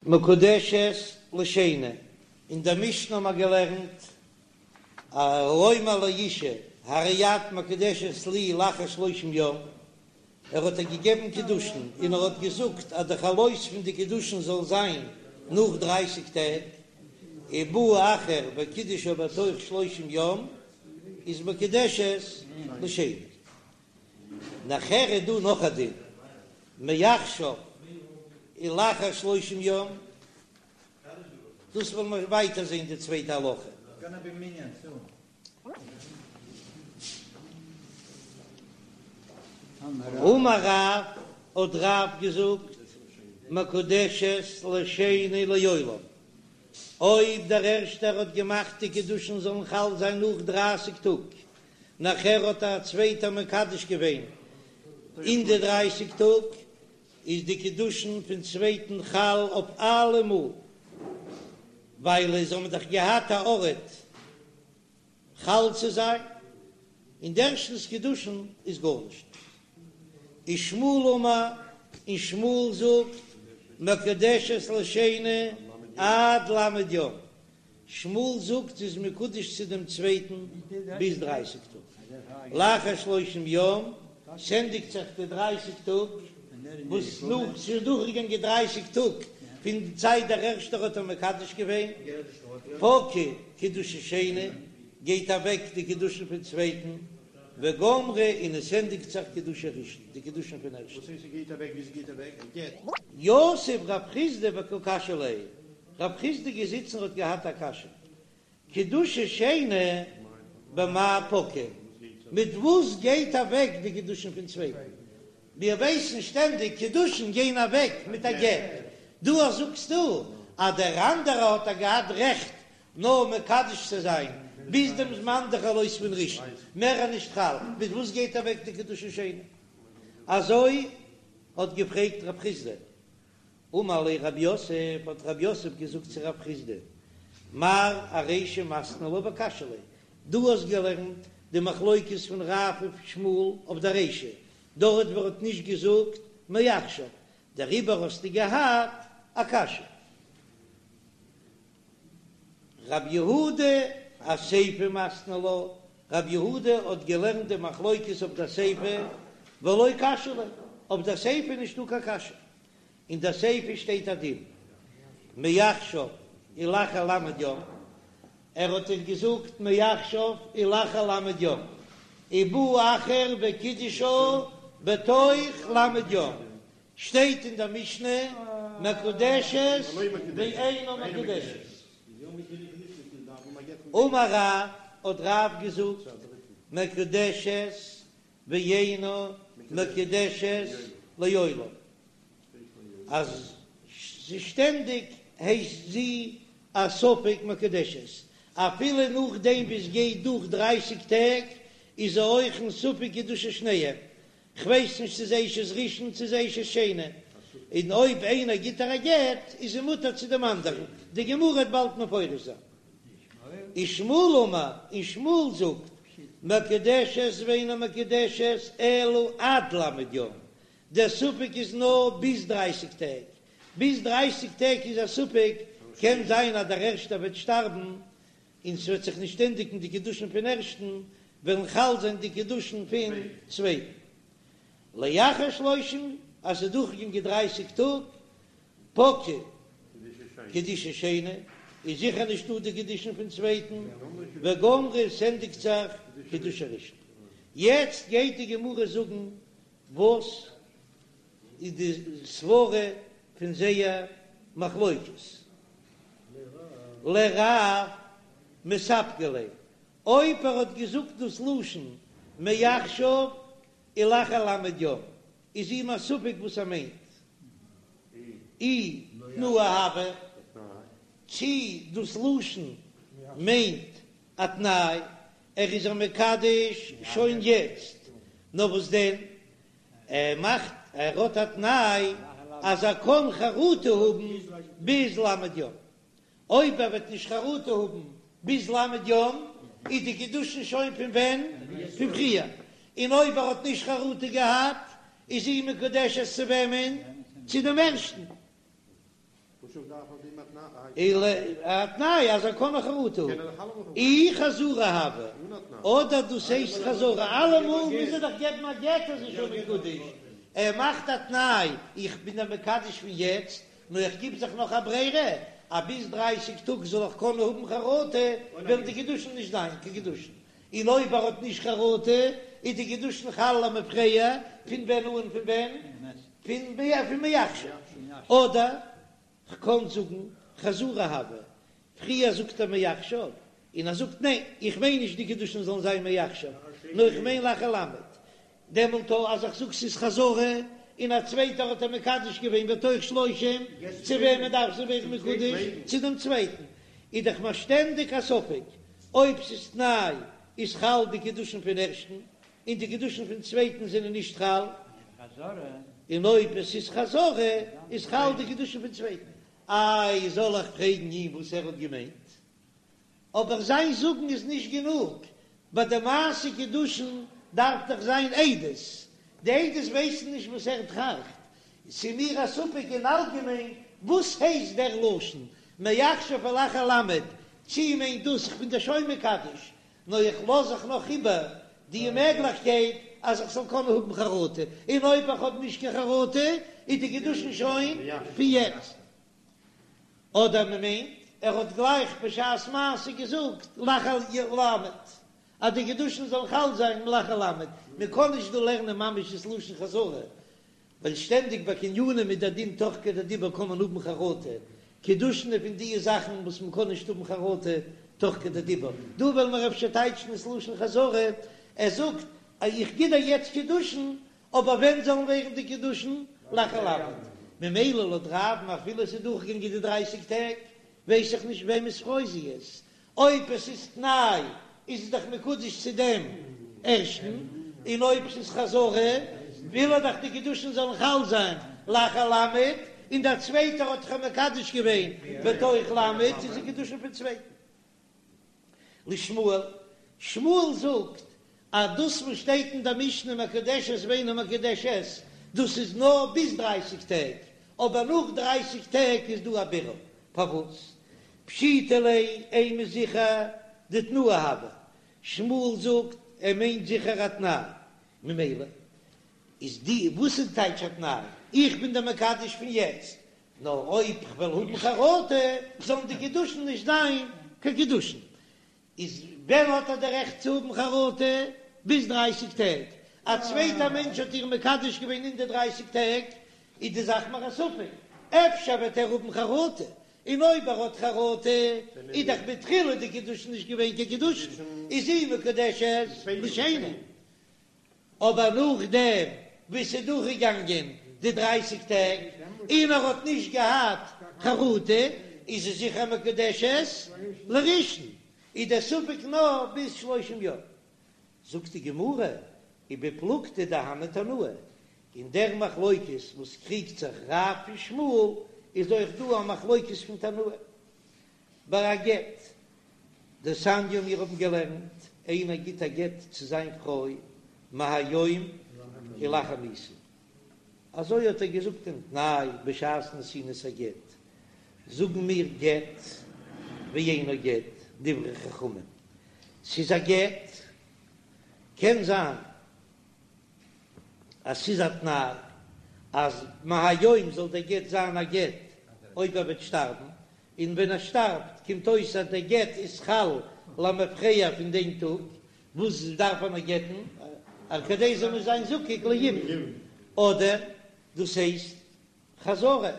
מקודשת לשני, אין דער משנה האבן מיר געלערנט, האומר לאשה הרי את מקודשת לי לאחר שלושים יום, ער האט איר געגעבן קידושין און ער האט געזאגט אז די חלות פון די קידושין זאל זיין נאך דרייסיג טעג, ובא אחר וקידשה בתוך שלושים יום, איז מקודשת לשני. נאכער איז דא נאך א דין, מעכשיו ולאחר שלושים יום, דאס וועלן מיר ווייטער זען די צווייטע הלכה. אמר רב, האט רב געזאגט, מקודשת לשני לעולם, אויב דער ערשטער האט געמאכט די קידושין זאלן חל זיין נאך דרייסיג טאג, נאכער האט א צווייטער מקדש געווען אין די דרייסיג טאג, איז די קידושין פון צווייטן חל אויף אלעמאל, ווייל זיי האבן דאך געהאט א ארט חל צו זיין, און די ערשטנס קידושין איז גארנישט. ושמואל אמר, און שמואל זאגט, מקודשת לשני עד ל' יום, שמואל זאגט זי איז מקודש צו דעם צווייטן ביז דרייסיג טאג, לאחר שלושים יום, ס'ענדיגט זיך די דרייסיג טאג, וואס נאך ס'איז דורכגעגאנגען דרייסיג טאג פון די צייט דער ערשטער האט איר מקדש געווען, פקע קידושי שני, גייט אוועק די קידושין פון צווייטן, וגמרי און עס ענדיגט זיך קידושי ראשון, די קידושין פון ערשטן. יתיב רב חסדא וקא קשיא ליה, רב חסדא געזיצן האט געהאט א קשיא, קידושי שני במאי פקעי, מיט וואס גייט אוועק די קידושין פון צווייטן? מיר ווייסן שטענדיג קידושין גייען אוועק מיט א גט, דא זאגסטו אז דער אנדערע האט א געהאט רעכט נאר מקדש צו זיין ביז דעם זמן די חלות פון ראשון, מער איז נישט חל, מיט וואס גייט אוועק די קידושי שני? אזוי האט געפרעגט רב חסדא. אמר ליה רב יוסף, האט רב יוסף געזאגט צו רב חסדא, מר ארישא מתני לה וקשיא ליה, דו האסט געלערנט די מחלוקת פון רב און שמואל אויף די רישא, דארט וואו ער האט נישט געזאגט מעכשיו, דעריבער האסטו געהאט א קשיא. רב יהודה אסיפא מתני לה, רב יהודה האט געלערנט די מחלוקת אויף די סיפא, ולא קשיא ליה, אויף די סיפא איז נישטא קיין קשיא, אין די סיפא שטייט א דין מעכשיו ולאחר ל' יום, ער האט איר געזאגט מעכשיו ולאחר ל' יום, ובא אחר וקידשה בתוך ל' יום, שטייט אין דער משנה מקודשת ואינה מקודשת. אמר רב, האט רב געזאגט, מקודשת ואינה מקודשת לעולם, אז זי שטענדיג הייסט זי א ספק מקודשת, אפילו נאכדעם ווי עס גייט דורך דרייסיג טעג איז זי אויך אין ספק קידושי שניהם, כ'ווייס נישט צו זי אשת ראשון צו זי אשת שני, און אויב איינער גיט איר א גט איז זי מותר צו דעם אנדערן, די גמרא וועט באלד מפרש זיין. ושמואל אמר, און שמואל זאגט, מקודשת ואינה מקודשת אלא עד ל' יום, דער ספק איז נאר ביז דרייסיג טעג, ביז דרייסיג טעג איז א ספק, קען זיין אז דער ערשטער וועט שטארבן און ס'וועט זיך נישט ענדיגן די קידושין פון ערשטן, וועלן חל זיין די קידושין פון צווייטן. לאחר שלושים, אז ס'איז דורכגעגאנגען דרייסיג טאג, פקעי קידושי שני, איז זיכער נישטא די קידושין פון צווייטן, וגמרי ס'ענדיגט זיך קידושי ראשון. יעצט גייט די גמרא זאגן וואס איז די סברה פון זייער מחלוקת. לרב מספקא ליה, אויב ער האט געזאגט דאס לשון מעכשיו ולאחר ל' יום, איז אים א ספק וואס ער מיינט, אי תנאה הוה, צי דאס לשון מיינט א תנאי, ער איז איר מקדש שוין יעצט, נאר וואס דען, ער מאכט, ער האט א תנאי אז ער קען חרטה האבן ביז ל' יום, אויב ער וועט נישט חרטה האבן ביז ל' יום איז די קידושין שוין פון ווען? פון פריער, און אויב ער האט נישט חרטה געהאט איז זי מקודשת צו וועמען? צו דעם ערשטן. אלא א תנאי אז ער קען נאך חרטה האבן, אי חזרה הוי, אדער דאס הייסט חזרה, אלעמאל מוז ער דאך געבן א גט אז ער איז שוין מקודש, ער מאכט א תנאי איך בין דיר מקדש פון יעצט, נאר איך גיב זיך נאך א ברירה אז ביז דרייסיג טאג זאל איך קענען האבן חרטה, וועלן די קידושין נישט זיין קיין קידושין, און אויב ער האט נישט חרטה איז די קידושין חל למפרע, פון ווען אן פון ווען? פון מעכשיו, אדער כ'קען זאגן חזרה הוי, פריער זאגט ער מעכשיו, און ער זאגט ניין איך מיין נישט די קידושין זאלן זיין מעכשיו, נאר איך מיין לאחר למד, דעמאלט אז איך זאג ס'איז חזרה, און א צווייטער האט איר מקדש געווען בתוך שלושים, צו וועמען דארף זי ווערן מקודש? צו דעם צווייטן, איז דאך מיר שטענדיג א ספק אויב ס'איז תנאי איז חל די קידושין פון ערשטן, און די קידושין פון צווייטן זענען נישט חל, און אויב עס איז חזרה איז חל די קידושין פון צווייטן. איי זאל איך פרעגן אים וואס ער האט געמיינט? אבער זיין זאגן איז נישט גענוג, ביי די מעשה קידושין דארף דאך זיין עדות, די עדות ווייסן נישט וואס ער טראכט, ס'איז מיר א ספק אין אלגעמיין וואס הייסט דער לשון מעכשיו ולאחר למד, צי מיינט דאס כ'בין דיר שוין מקדש, נאר איך לאז זיך נאך איבער די מעגליכקייט אז איך זאל קענען האבן חרטה, און אויב איך האב נישט קיין חרטה איז די קידושין שוין פון יעצט. אדער מען מיינט ער האט גלייך בשעת מעשה געזאגט לאחר למד אז די קידושין זאלן חל זיין לאחר למד, מען קען נישט דא לערנען ממש דאס לשון חזרה, ווייל שטענדיג ביי קנינים איז דער דין תוך כדי דיבור קען מען האבן חרטה, קידושין איז פון די זאכן וואס מען קען נישט האבן חרטה תוך כדי דיבור, דא וועלן מיר אפשר טייטשן עס לשון חזרה, ער זאגט איך גיב דיר יעצט קידושין אבער ווען זאלן ווערן די קידושין? לאחר למד. ממילא לויט רב'ן אפילו עס איז דורכגעגאנגען די דרייסיג טעג, ווייס איך נישט וועמענס פרוי זי איז. אויב עס איז תנאי איז עס דאך מקודש צו דעם ערשטן, און אויב עס איז חזרה וויל ער דאך די קידושין זאלן חל זיין לאחר למד, און דער צווייטער האט דאך מקדש געווען בתוך למד, איז די קידושין פון צווייטן. לשמואל, שמואל זאגט אז דאס וואס שטייט אין דער משנה מקודשת ואינה מקודשת, דאס איז נאר ביז דרייסיג טעג, אבער נאך דרייסיג טעג איז דא א בירור, פארוואס? פשיטא ליה אימא זיכער דתנאה הוי, שמואל זאגט ער מיינט זיכער א תנאי, ממילא איז די וואס איז טייטש א תנאי? איך בין דיר מקדש פון יעצט, נאר אויב כ'וועל האבן חרטה זאלן די קידושין נישט זיין קיין קידושין. איז ווען האט ער די רעכט צו האבן חרטה? ביז דרייסיג טעג. א צווייטער מענטש האט איר מקדש געווען אין די דרייסיג טעג, איז די זאך מיר א ספק, אפשר וועט ער האבן חרטה, און אויב ער האט חרטה איז דאך מתחילה די קידושין נישט געווען קיין קידושין, איז זי מקודשת לשני. אבער נאכדעם ווי ס'איז דורכגעגאנגען די דרייסיג טעג און ער האט נישט געהאט חרטה, איז זי זיכער מקודשת לראשון, איז דער ספק נאר ביז שלושים יום. זאגט די גמרא, ובפלוגתא דהני תנאי, אין דער מחלוקת וואס קריגט זיך רב און שמואל, איז אויך דא א מחלוקת פון תנאים ביי א גט. דתניא מיר האבן געלערנט, איינער גיט א גט צו זיין פרוי מהיום ולאחר מיתה, אזוי האט ער געזאגט דעם תנאי בשעת נתינת הגט, זאגן מיר גט ואינו גט, דברי חכמים, ס'איז א גט, קען זיין אז ס'איז א תנאי אז מהיום זאל דער גט זיין א גט אויב ער וועט שטארבן, און ווען ער שטארבט קומט אויס אז דער גט איז חל למפרע פון דעם טאג וואס דארף ער נאך גט'ן אז כדי זאל נישט זיין זקוק ליבום, אדער דאס הייסט חזרה,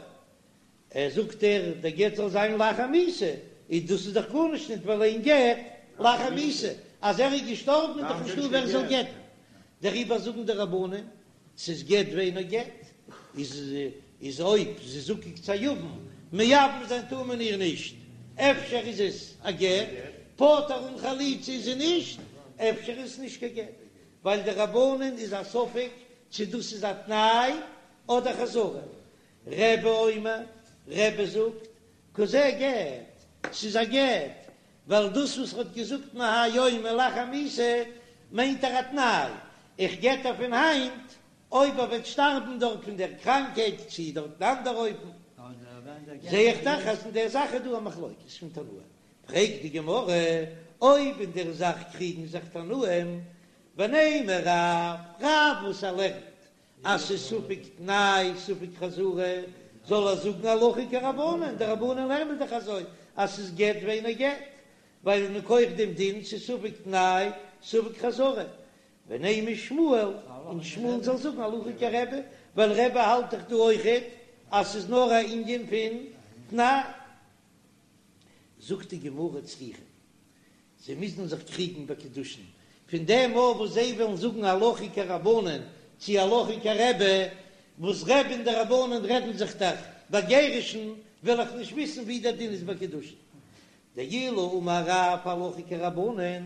ער זאגט ער דער גט זאל זיין לאחר מיתה, איז דאס איז דאך גארנישט ניט ווייל אין גט לאחר מיתה, אז ער איז געשטארבן איז דאך נישטא ווער זאל גט'ן, דעריבער זאגן די רבנן ס'איז גט ואינו גט, איז איז אויב זי איז זקוק צו א יבם, מייבם זיין טאר מען איר נישט, אפשר איז עס א גט, פטור אן חליצה איז זי נישט, אפשר איז עס נישט קיין גט, ווייל די רבנן איז א ספק צו דאס איז א תנאי אדער חזרה. רבי אומר, רבי זאגט, כזה גט, ס'איז א גט, ווייל דאס וואס ר'האט געזאגט מהיום ולאחר מיתה מיינט ער א תנאי, איך גט איר פון היינט, אויב ער וועט שטארבן דארט פון דער קראנקהייט צי דארט אין אנדער אופן. זע איך דאך אז אין דער זאך איז דא א מחלוקת פון תנאים. פרעגט די גמרא, אויב אין דער זאך קריגן זיך תנאים, ונימא רב, רב וואס ער לערנט אז ס'איז ספק תנאי ספק חזרה, זאל ער זאגן הלכה כרבנן, די רבנן לערנען דאך אזוי אז ס'איז גט ואינו גט, ווייל מכח דעם דין ס'איז ספק תנאי ספק חזרה, ונימא שמואל, און שמואל זאל זאגן הלכה כרבי, ווייל רבי האלט דאך דא אויכעט אז ס'איז נאר א ענין פון תנאי. זאגט די גמרא צריכא, זיי מוזן זיך קריגן ביי קידושין, פון דעם מאל וואס זיי וועלן זאגן הלכה כרבנן צי הלכה כרבי, וואס רבי און די רבנן רעדן זיך דאך ביי גירושין, וועל איך נישט וויסן ווי דער דין איז ביי קידושין. דאילו אמר רב הלכה כרבנן,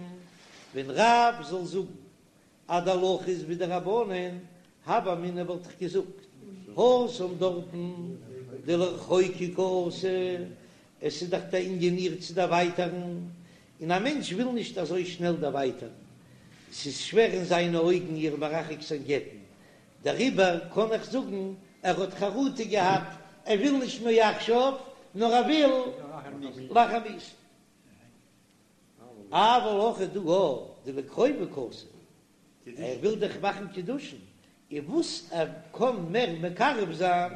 ווען רב זאל זאגן אז די הלכה איז ווי די רבנן, הוה אמינא וואלט איך געזאגט, התם דארטן דלרחוקי קאתי, עס איז דאך דער ענין איר צו דערווייטערן, און א מענטש וויל נישט אזוי שנעל דערווייטערן, ס'איז שווער אין זיינע אויגן איר מרחק זיין גט'ן, דעריבער קען איך זאגן ער האט חרטה געהאט, ער וויל נישט מעכשיו, נאר ער וויל לאחר מיתה. אבל הכא דא דלקרובה קאתי, ער וויל דאך מאכן קידושין, און וואס ער קען מער מקרב זיין,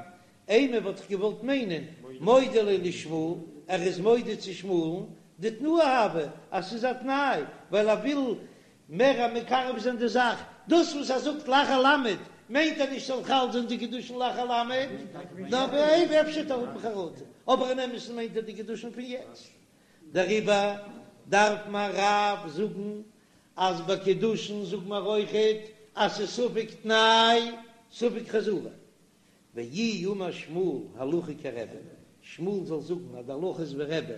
אימא וואלט איך געוואלט מיינען מודה ליה לשמואל, ער איז מודה צו שמואל'ן, דתנאה הוי, אז ס'איז א תנאי, ווייל ער וויל מער מקרב זיין די זאך, דאס וואס ער זאגט לאחר למד מיינט ער נישט ס'זאל חל זיין די קידושין לאחר למד, נאר אויב אפשר וועט ער האבן חרטה, אבער אין אמת'ן מיינט ער די קידושין פון יעצט. דעריבער דארף מיר רב זאגן אז ביי קידושין זאג מיר אויכעט אז ס'איז ספק תנאי ספק חזרה. ואי אמר שמואל הלכה כרבי, שמואל זאל זאגן אז די הלכה איז ווי רבי,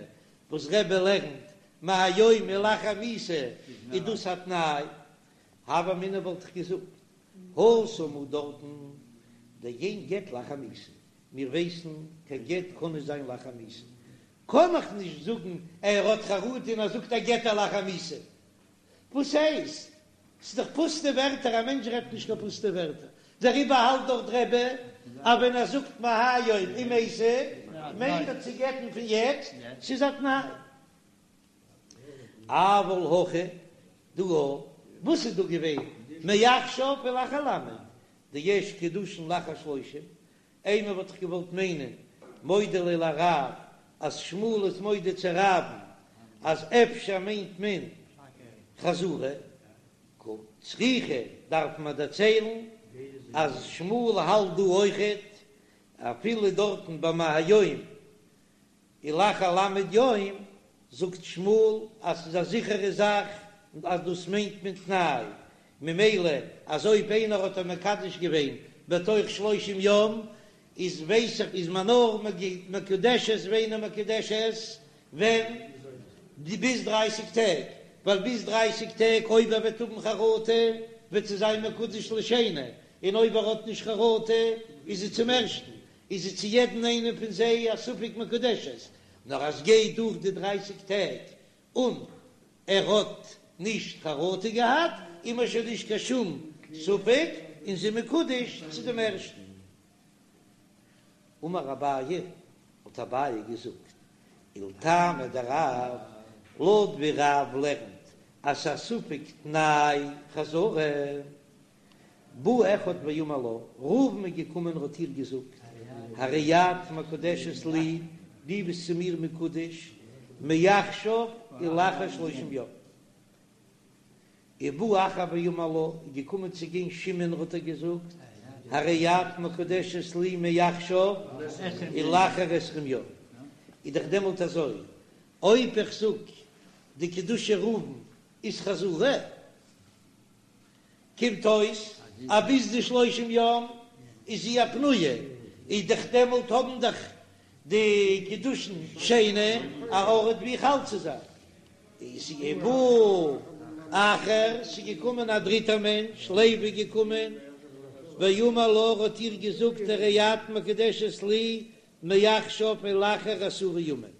וואס רבי לערנט מהיום ולאחר מיתה איז דאס א תנאי, הוה אמינא וואלט איך געזאגט התם הוא דארטן דאין גט לאחר מיתה, מיר ווייסן קיין גט קען נישט זיין לאחר מיתה, קען איך נישט זאגן ער האט חרטה און ער זאגט ער גט איר לאחר מיתה. וואס הייסט? ס'איז דאך פוסטע ווערטער, א מענטש רעדט נישט קיין פוסטע ווערטער, דעריבער האלט דאך רבי אז ווען ער זאגט מהיום ומתה מיינט ער צו גט'ן פון יעצט, ס'איז א תנאי. אבל הכא דא וואס איז דא געווען מעכשיו ולאחר למד דיש קידושין לאחר שלושים אימא וואלט איך געוואלט מיינען מודה ליה לרב אז שמואל איז מודה צו רב'ן אז אפשר מיינט מען חזרה קא צריכא דארף מען דערציילן אז שמואל האלט דא אויכעט אפילו דארטן ביי מהיום ולאחר למד יום זאגט שמואל אז ס'איז א זיכערע זאך אז דאס מיינט מען תנאי, ממילא אז אויב איינער האט איר מקדש געווען בתוך שלושים יום איז ווייס איך איז מען נאר מקודשת ואינה מקודשת ווען ביז דרייסיג טעג, ווייל ביז דרייסיג טעג אויב ער וועט האבן חרטה וועט זי זיין מקודש לשני, און אויב ער האט נישט חרטה איז זי צום ערשטן, איז זי צו יעדן איינעם פון זיי א ספק מקודשת, נאר אז גייט דורך די דרייסיג טעג און ער האט נישט חרטה געהאט, איז מען שוין נישט קיין שום ספק און זי מקודש צו דעם ערשטן. אמר אביי, האט אביי געזאגט, ולטעמיה דרב, לויט ווי רב לערנט אז ס'איז א ספק תנאי חזרה, בא אחד ואמר לה, ראובן איז געקומען און האט איר געזאגט, הרי את מקודשת לי, דו ביסט צו מיר מקודש, מעכשיו ולאחר שלושים יום. ובא אחר ואמר לה, איז געקומען צו גיין שמעון האט ער געזאגט, הרי את מקודשת לי מעכשיו ולאחר עשרים יום. איז דאך דעמאלט אזוי, אויב איך זאג די קידושי ראובן איז חזרה, קומט אויס אז ביז די שלושים יום איז זי א פנויה, איז דאך דעמאלט האבן דאך די קידושין שני א ארט ווי חל צו זיין. איז ובא אחר, ס'איז געקומען א דריטער מענטש, לוי איז געקומען, ואמר לה, האט איר געזאגט הרי את מקודשת לי מעכשיו ולאחר עשרה ימים.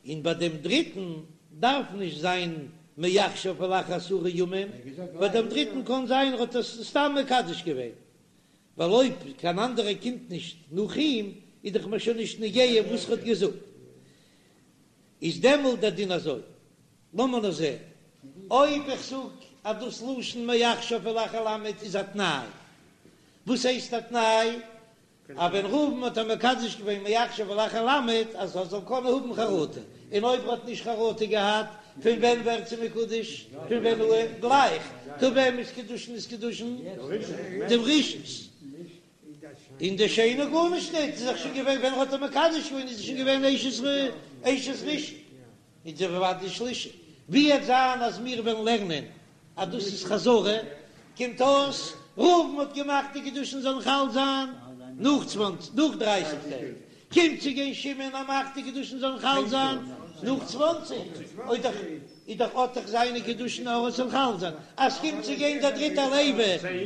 און ביי דעם דריטן דארף נישט זיין מעכשיו ולאחר עשרה ימים, ביי דעם דריטן קען זיין ער האט עס סתם מקדש געווען, ווייל אויב קיין אנדערער קומט נישט נאך אים. איז דאך מיר שוין נישט נוגע וואס ער האט געזאגט, איז דעמאלט דער דין אזוי, לאמיר נאר זען אויב איך זאג אז דאס לשון מעכשיו ולאחר למד איז א תנאי, וואס הייסט א תנאי? אז ווען ראובן האט איר מקדש געווען מעכשיו ולאחר למד אז ער זאל קענען האבן חרטה, און אויב ער האט נישט חרטה געהאט, פון ווען ווערט זי מקודש? פון ווען אן? גלייך. טא וועמענס קידושין איז קידושין? דעם ראשונ'ס. און די שני גארנישט ניט, איז דאך שוין געווען ווען ער האט איר מקדש געווען איז זי שוין געווען אשת אשת ראשון. איז זי אוודאי שלישי. ווי עט זיין אז מיר וועלן לערנען אז דאס איז חזרה, קומט אויס ראובן האט געמאכט די קידושין זאלן חל זיין נאך צוואנציג נאך דרייסיג טעג, קומט צו גיין שמעון ער מאכט די קידושין זאלן חל זיין נאך צוואנציג, אוי דאך איז דאך האט דאך זיינע קידושין אויך זאל חל זיין, אז קומט צו גיין דער דריטער לוי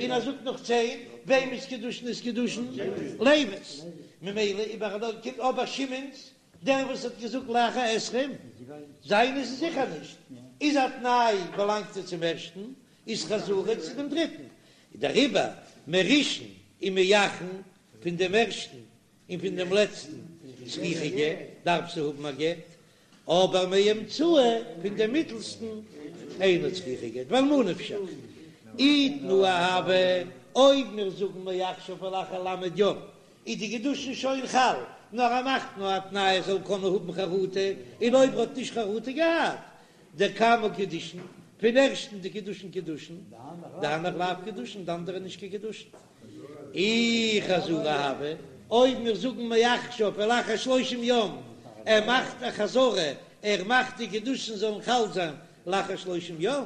און ער זאגט נאך צען, וועמענס קידושין איז קידושין? לוי'ס, ממילא איבער קומט אבער שמעון'ס דער וואס האט געזאגט לאחר עשרים, זיינע איז זיכער נישט, איז א תנאי באלאנגט ער צום ערשטן, איז חזרה צו דעם דריטן, דעריבער מראשון ומאחרון פון דעם ערשטן און פון דעם לעצטן צריכה גט, דארף זי האבן א גט, אבער מאמצעי פון דעם מיטלסטן אינה צריכה גט, ווייל מה נפשך אי תנאה הוה, אויב מיר זאגן מעכשיו ולאחר למד יום איז די קידושין שוין חל, נאר ער מאכט נאר א תנאי ער זאל קענען האבן חרטה, און אויב ער האט נישט חרטה געהאט, דקמא קידושין, פון ערשטן די קידושין קידושין, דהנך לאו קידושין, די אנדערע נישט קיין קידושין. אי חזרה הוה, אויב מיר זאגן מעכשיו ולאחר שלושים יום, ער מאכט א חזרה, ער מאכט די קידושין זאלן חל זיין לאחר שלושים יום,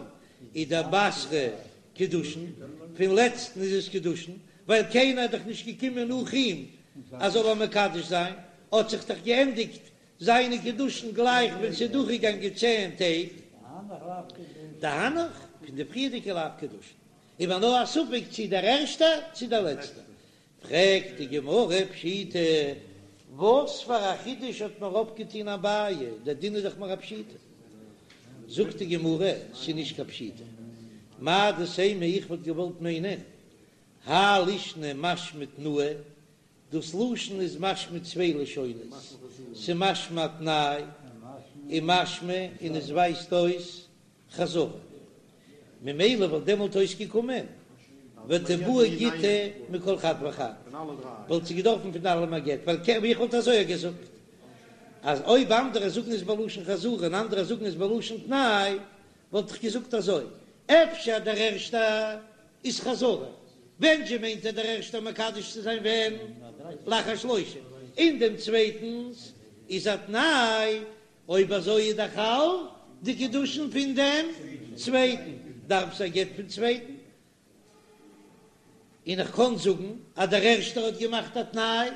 איז דבתרא קידושין, פון לעצטן איז עס קידושין, ווייל קיינער איז דאך נישט געקומען נאך אים אז זאל אים מקדש זיין, האט זיך דאך געענדיגט זיינע קידושין גלייך ווען ס'איז דורכגעגאנגען צען טעג. דהנך, פון די פריערדיגע לאו קידושין, איז מיר נאר א ספק צי דער ערשטער צי דער לעצטער. פרעגט די גמרא פשיטא, וואס פאר א חידוש האט מיר אויפגעטון אביי, דער דין איז דאך מיר א פשיטא. זאגט די גמרא, ס'איז נישט קיין פשיטא, מהו דתימא איך וואלט געוואלט מיינען, האי לישנא משמע תנאה, דאס לשון איז משמע צוויי לשונות, ס'משמע א תנאי, און משמע און עס ווייזט אויס חזרה. ממילא וואלט דעמאלט אויסגעקומען ותיבעי גיטא מכל חד וחד, וואלט זי געדארפן פון אלעם א גט, ווייל ווי איך וואלט אזוי געזאגט אז אויב אנדערע זאגן עס בלשון חזרה און אנדערע זאגן עס בלשון תנאי, וואלט איך געזאגט אזוי, אפשר דער ערשטער איז חזרה, ווען זשע מיינט ער דער ערשטער מקדש צו זיין ווען? לאחר שלושים, און דעם צווייטנס איז א תנאי, אויב אזוי איז דאך חל די קידושין פון דעם צווייטן, דארף זי א גט פון צווייטן, און איך קען זאגן אז דער ערשטער האט געמאכט א תנאי,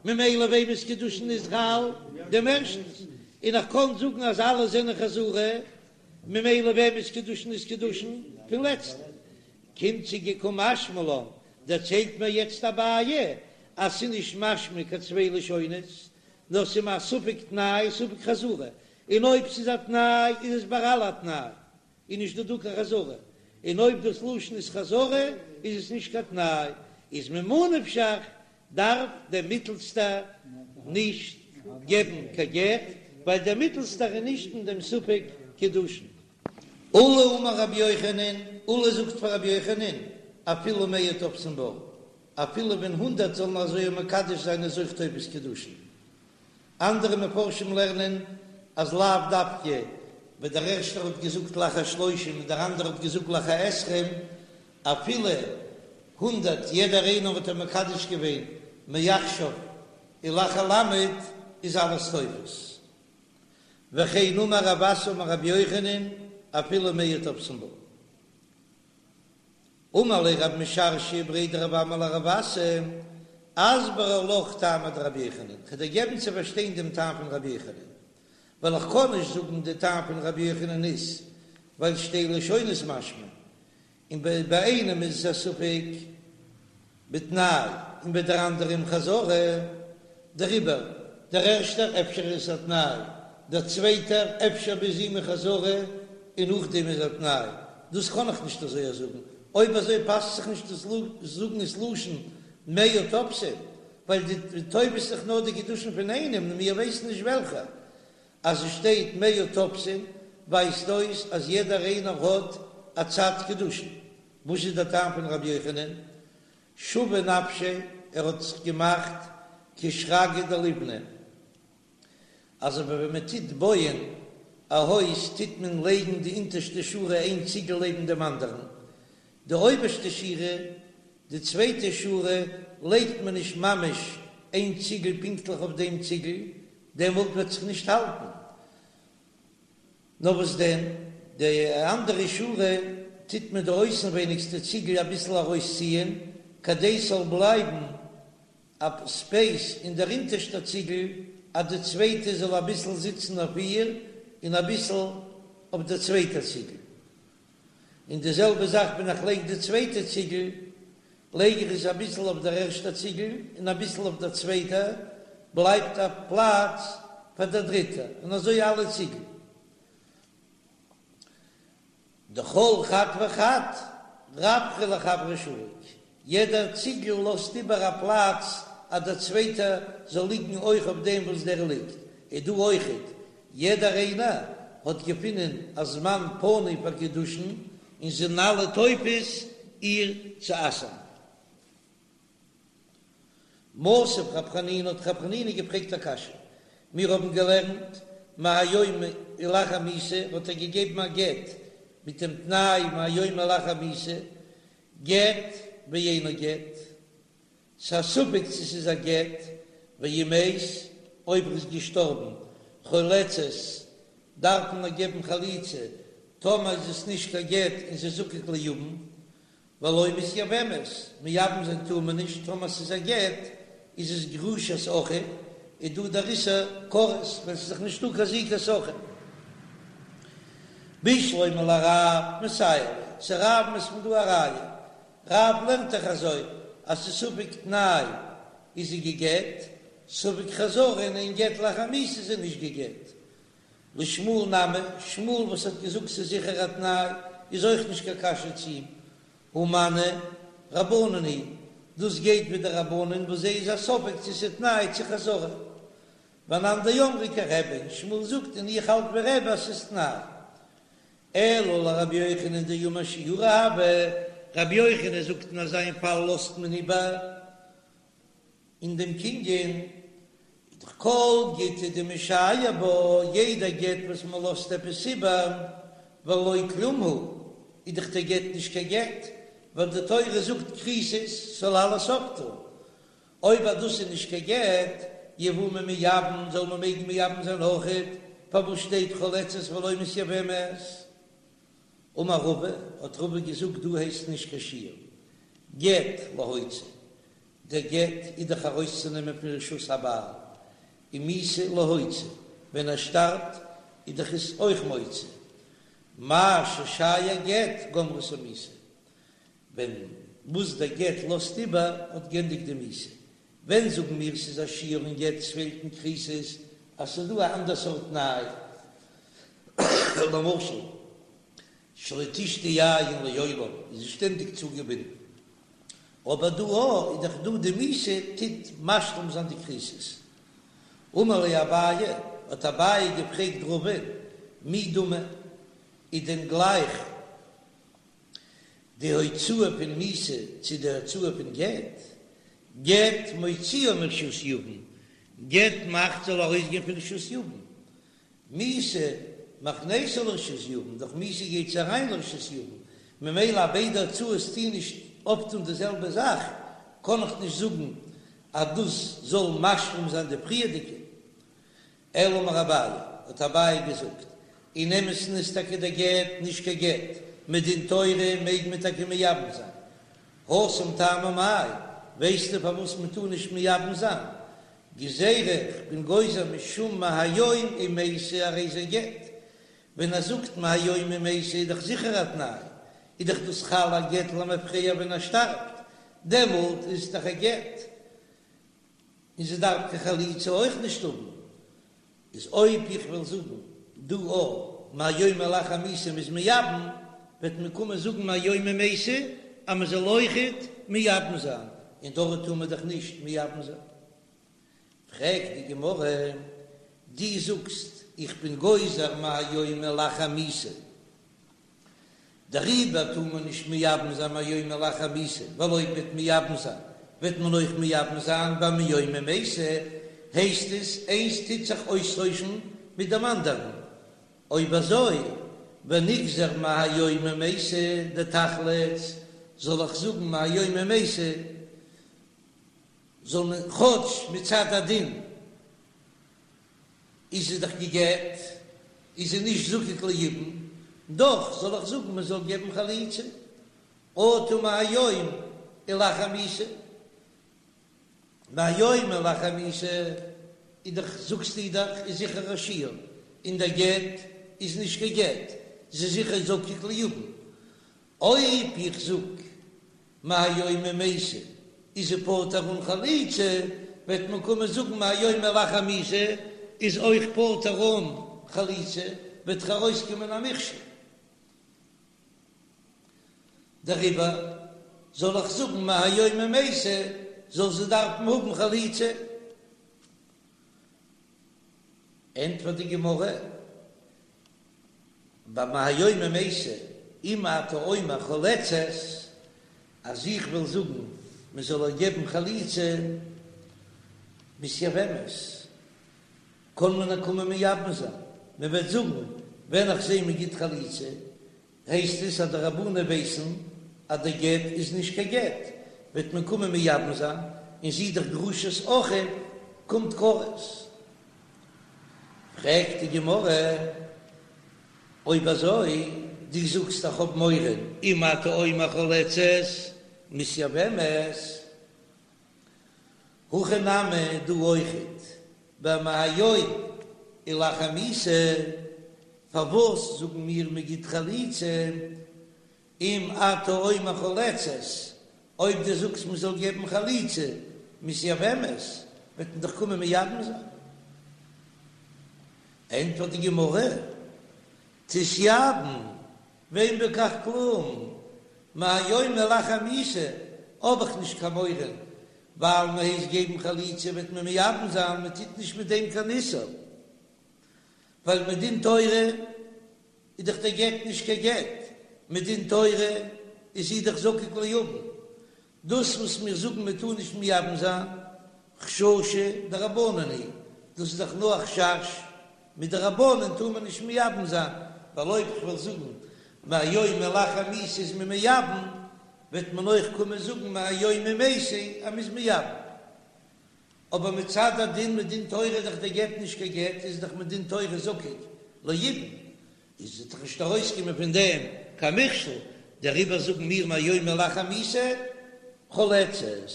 ממילא וועמענס קידושין איז חל? דעם ערשטנס, און איך קען זאגן אז אלע זענען חזרה, ממילא וועמענס קידושין איז קידושין? פון לעצטן. קומט צו גיין קא משמע לן, דערציילט מיר יעצט אביי אז ס'איז נישט משמע קיין צוויי לשונות, נאר ס'איז מיר א ספק תנאי ספק חזרה, און אויב ס'איז א תנאי איז עס ביי אלע א תנאי, איז נישט דא דא קיין חזרה, און אויב דאס לשון איז חזרה איז עס נישט קיין תנאי, איז ממה נפשך דארף דער מיטלסטער נישט געבן קיין גט, ווייל דער מיטלסטער איז נישט אין דעם ספק קידושין. עולא אמר רבי יוחנן, עולא זאגט פאר רבי יוחנן, אפילו מאה תופסין בה, אפילו ווען הונדערט זאלן אזוי מקדש זיין איז אויך תופס קידושין. אנדערע מפרשים לערנען אז לאו דווקא ווען דער ערשטער האט געזאגט לאחר שלושים און דער אנדערער האט געזאגט לאחר עשרים, אפילו הונדערט יעדער איינער האט ער מקדש געווען מעכשיו ולאחר למד איז אלעס תופס. וכן אמר רב אסי אמר רבי יוחנן אפילו מאה תופסין בה. אמר ליה רב משרשיא בריה דרב אמי לרב אסי, אסברא לך טעמא דרבי יוחנן, כ'וועל דיר געבן צו פארשטיין דעם טעם פון רבי יוחנן, ווייל איך קען נישט זאגן די טעם פון רבי יוחנן איז ווייל שתי לשונות משמע, און ביי איינעם איז עס א ספק בתנאי און ביי דער אנדערעם חזרה, דעריבער דער ערשטער אפשר איז עס א תנאי, דער צווייטער אפשר ביז אים איז חזרה און נאכדעם איז א תנאי, דאס קען איך נישט אזוי זאגן, אויב אזוי פאסט זיך נישט דאס זאגן ס'לשון מאה תופסין. ווייל די תופס זיך נאר די קידושין פון איינעם און מיר ווייסן נישט וועלכע. אז עס שטייט מאה תופסין ווייזט אויס אז יעדער איינער האט א צד קידושין. וואס איז דער טעם פון רבי יוחנן? שוי נפשיה, ער האט זיך געמאכט כשרגא דליבני, אזוי ווי ווען מען טוט בויען א הויז טוט מען לייגן די אונטערשטע שורה איין ציגל לעבן דעם אנדערן, די אויבערשטע שורה, די צווייטע שורה, לייגט מען נישט ממש איין ציגל פונקטליך אויף דעם ציגל, דעמאלט וועט זיך נישט האלטן. נאר וואס דען, די אנדערע שורה טוט מען די אויסנווייניגסטע ציגל אביסל ארויסציען, כדי ס'זאל בלייבן א ספעיס אין דער אונטערשטער ציגל, אז די צווייטע זאל אביסל זיצן אויף איר, און אביסל אויף דער צווייטער ציגל. און די זעלבע זאך ווען איך לייג די צווייטע ציגל, לייג איך עס אביסל אויף דער ערשטער ציגל און אביסל אויף דער צווייטער, בלייבט א פלאץ פאר דער דריטער, און אזוי אלע ציגל. דכל חד וחד רווחא לחבריה שריק, יעדער ציגל לאזט איבער א פלאץ אז דער צווייטער זאל ליגן אויך אויף דעם וואס דער ליגט, איז דא אויכעט, יעדער איינער האט געפונען א זמן פנוי פאר קידושין און זענען אלע תופס איר צו אסר'ן. מתיב רב חנינא האט רב חנינא געפרעגט א קשיא, מיר האבן געלערנט מהיום ולאחר מיתה האט ער געגעבן א גט מיט דעם תנאי מהיום ולאחר מיתה, גט ואינו גט, ס'איז א ספק צו ס'איז א גט, ואם מת, אויב ער איז געשטארבן, חולצת, דארף מען איר געבן חליצה, טאמער איז עס נישט קיין גט און זי איז זקוק ליבם, ולא מתייבמת, מייבם זיין טאר מען נישט, טאמער ס'איז א גט איז עס גרושת אחיו, איז דא דער איסור כרת ווען ס'איז דאך נישטא קיין זיקת אחיו. בשלמא לרב מסייע ליה, צו רב'ן איז פון דא א ראיה, רב לערנט דאך אזוי אז ס'איז ספק תנאי איז זי גע'גט, ספק חזרה און אין גט לאחר מיתה איז זי נישט גע'גט. לשמואל נמי, שמואל וואס האט געזאגט ס'איז זיכער א תנאי איז אויך נישט קיין קשיא צו אים, הא מני רבנן היא, דאס גייט ווי די רבנן וואס זיי איז א ספק צו ס'איז תנאי צו חזרה. ואנן דאמרי כרבי, און שמואל זאגט און איך האלט ווי רבי אז ס'איז תנאי. אלא לרבי יוחנן דאמר שיורא הוי, רבי יוחנן זאגט אין אזא פאל לאזט מען איבער אין דעם קנין, איז דאך כל גיטא דמשייר בה, יעדע גט וואס מען לאזט עפעס איבער, ולא כלום הוא, איז דאך דער גט נישט קיין גט, ווייל די תורה זאגט כריתות זאל אלעס אפטון, אויב אז דאס איז נישט קיין גט, יבומי מייבם, זאל מען מעגן מייבם זיין אויכעט, פארוואס שטייט חולצת ולא מתייבמת? אמר רבא, האט רבא געזאגט דא הייסט נישט קיין שיור, גט להוציא, דער גט איז דאך ארויסצונעמען פון רשות הבעל, און מיתה להוציא, ווען ער שטארבט איז דאך עס אויך מוציא, מה ששייר גט גמרתו מיתה, ווען וואס דער גט לאזט איבער האט גענדיגט די מיתה, ווען זאגן מיר ס'איז א שיור אין גט ס'פעלט אין כריתות אז ס'איז דא א אנדער סארט תנאי, למשל שלא תשתי יין לעולם איז זי שטענדיג צוגעבינדן, אבער דא א איז דאך דא די מיתה טוט משלים זיין די כריתות. אמר ליה אביי, האט אביי געפרעגט רבא'ן, מי דמי, איז דען גלייך די הוצאה פון מיתה צו די הוצאה פון גט, גט מוציאה מרשות יבם, גט מאכט זאל ארויסגיין פון רשות יבם, מיתה מכניסה לרשות יבם, דורך מיתה גייט זי אריין לרשות יבם, ממילא אז ביידע הוצאות טוהן נישט אויפטון די זעלבע זאך, קען איך נישט זאגן אז דאס זאל משלים זיין די פריערדיגע. אלא אמר אביי, האט אביי געזאגט, אין אמת'ן איז טאקע דער גט נישט קיין גט, מדין תורה מעג מען טאקע מייבם זיין. התם טעמא מאי, ווייסטו פארוואס מען טאר נישט מייבם זיין? גזירה, כ'בין גוזר משום מהיום אם מתה הרי זה גט. ווען ער זאגט מהיום אם מתה איז דאך זיכער א תנאי, איז דאך דאס חל א גט למפרע ווען ער שטארבט, דעמאלט איז עס דאך א גט. און זי דארף קיין חליצה אויך נישט האבן, איז אויב איך וועל זאגן דא א מהיום ולאחר מיתה מ'איז מייבם, וועט מען קומען זאגן מהיום אם מתה אז מען זאל אויכעט מייבם זיין, און דארט טאר מען דאך נישט מייבם זיין. פרעגט די גמרא, דו זאגסט איך בין גוזר מהיום ולאחר מיתה, דעריבער טאר מען נישט מייבם זיין מהיום ולאחר מיתה, ווייל אויב מ'וועט מייבם זיין וועט מען אויך מייבם זיין ביי מיום ומתה, הייסט עס איינס טוט זיך אויסטוישן מיט דעם אנדערן, אויב אזוי ונגזור מהיום ומתה דתחלוץ, זאל איך זאגן מהיום ומתה זאל מען כאטש מצד הדין איז זי דאך גע'גט, איז זי נישט זקוק ליבום, דאך זאל איך זאגן מען זאל געבן חליצה, אטו מהיום ולאחר מיתה, מהיום ולאחר מיתה איז דאך זאגסטו דאך איז זיכער א שיור, און דער גט איז נישט קיין גט, זי איז זיכער זקוק ליבום, אויב איך זאג מהיום ומתה איז זי פטור אן חליצה, וועט מען קומען זאגן מהיום ולאחר מיתה איז אויך פטור אן חליצה, וועט דאך ארויסקומען א מכשול. דעריבער זאל איך זאגן מהיום ומתה זאל זי דארפן האבן חליצה. ענטפערט די גמרא. ביי מהיום ומתה, אם אתה אומר חולצת, אז איך וועל זאגן מען זאל איר געבן חליצה, מתייבמת, קען מען איר קומען מייבם זיין, מען וועט זאגן ווען איך זע מען גיט חליצה, הייסט עס אז די רבנן ווייסן אז די גט איז נישט קיין גט, וועט מען קומען מייבם זיין, און זי איז דאך גרושת אחיו, קומט כרת. פרעגט די גמרא, אויב אזוי, דו זאגסט איך האב מורא, אם אתה אומר חולצת, מתייבמת, הכא נמי דא אויכעט, במהיום ולאחר מיתה, פארוואס זאגן מיר מ'גיט חליצה, אם אתה אומר חולצת, אויב דו זאגסט מען זאל געבן חליצה, מתייבמת, וועט מען דאך קומען מייבם זיין. ענטפערט די גמרא, תתייבם, ואין בכך כלום, מהיום ולאחר מיתה האב איך נישט קיין מורא, ווייל מען הייסט געבן חליצה וועט מען מייבם זיין, מען טוט נישט מיט דעם קיין איסור, ווייל מדין תורה איז דאך דער גט נישט קיין גט, מדין תורה איז זי דאך זקוק ליבם, דאס וואס מיר זאגן מען טאר נישט מייבם זיין, חששא דרבנן היא, דאס איז דאך נאר א חשש, מדרבנן טאר מען נישט מייבם זיין, ווייל אויב כ'וועל זאגן מהיום ולאחר מיתה איז מען מייבם, וועט מען אויך קומען זאגן מהיום ומתה אז מ'איז מייבם. אבער מצד הדין מדין תורה איז דאך דער גט נישט קיין גט, איז דאך מדין תורה זקוק ליבום, איז וועט דאך נישט ארויסקומען פון דעם קיין מכשול, דעריבער זאגן מיר מהיום ולאחר מיתה חולצת.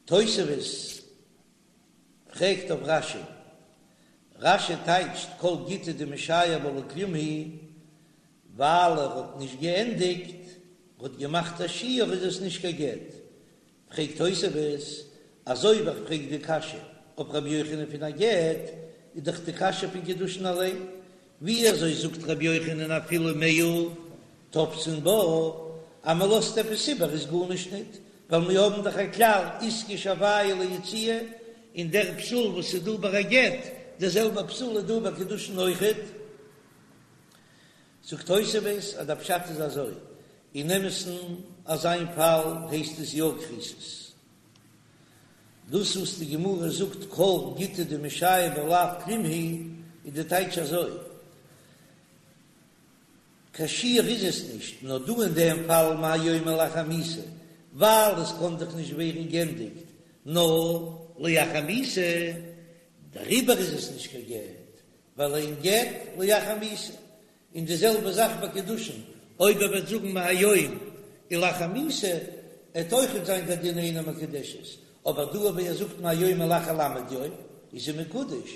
תוספות פרעגט אויף רש"י, רש"י טייטשט כל גיטא דמשייר בה לא כלום הוא, ווייל ער האט נישט געענדיגט, ער האט געמאכט א שיור איז עס נישט קיין גט, פרעגט תוספות, אזוי ווי איך פרעג די קשיא אויף רבי יוחנן פון א גט, איז דאך די קשיא פון קידושין אליין, ווי אזוי זאגט רבי יוחנן אפילו מאה תופסין בה, אז מען לאזט עפעס איבער איז גארנישט ניט, ווייל מיר האבן דאך א כלל איתקש הויה ליציאה, און דער פסול וואס איז דא ביי א גט, דער זעלבער פסול איז דא ביי קידושין אויכעט. זאגט תוספות אז דער פשט איז אזוי, אין אמת'ן אזא פאל הייסט עס יא כריתות. דאס וואס די גמרא זאגט כל גיטא דמשייר בה לאו כלום הוא, איז די טייטש אזוי, קיין שיור איז עס נישט, נאר דא אין דעם פאל מהיום ולאחר מיתה, ווייל עס קען דאך נישט ווערן גענדיגט נאר לאחר מיתה, דעריבער איז עס נישט קיין גט, ווייל אין גט לאחר מיתה, און די זעלבע זאך ביי קידושין, אויב ער וועט זאגן מהיום ולאחר מיתה, עט אויכעט זיין דער דין אינה מקודשת, אבער דא אויב ער זאגט מהיום ולאחר ל' יום, איז זי מקודש,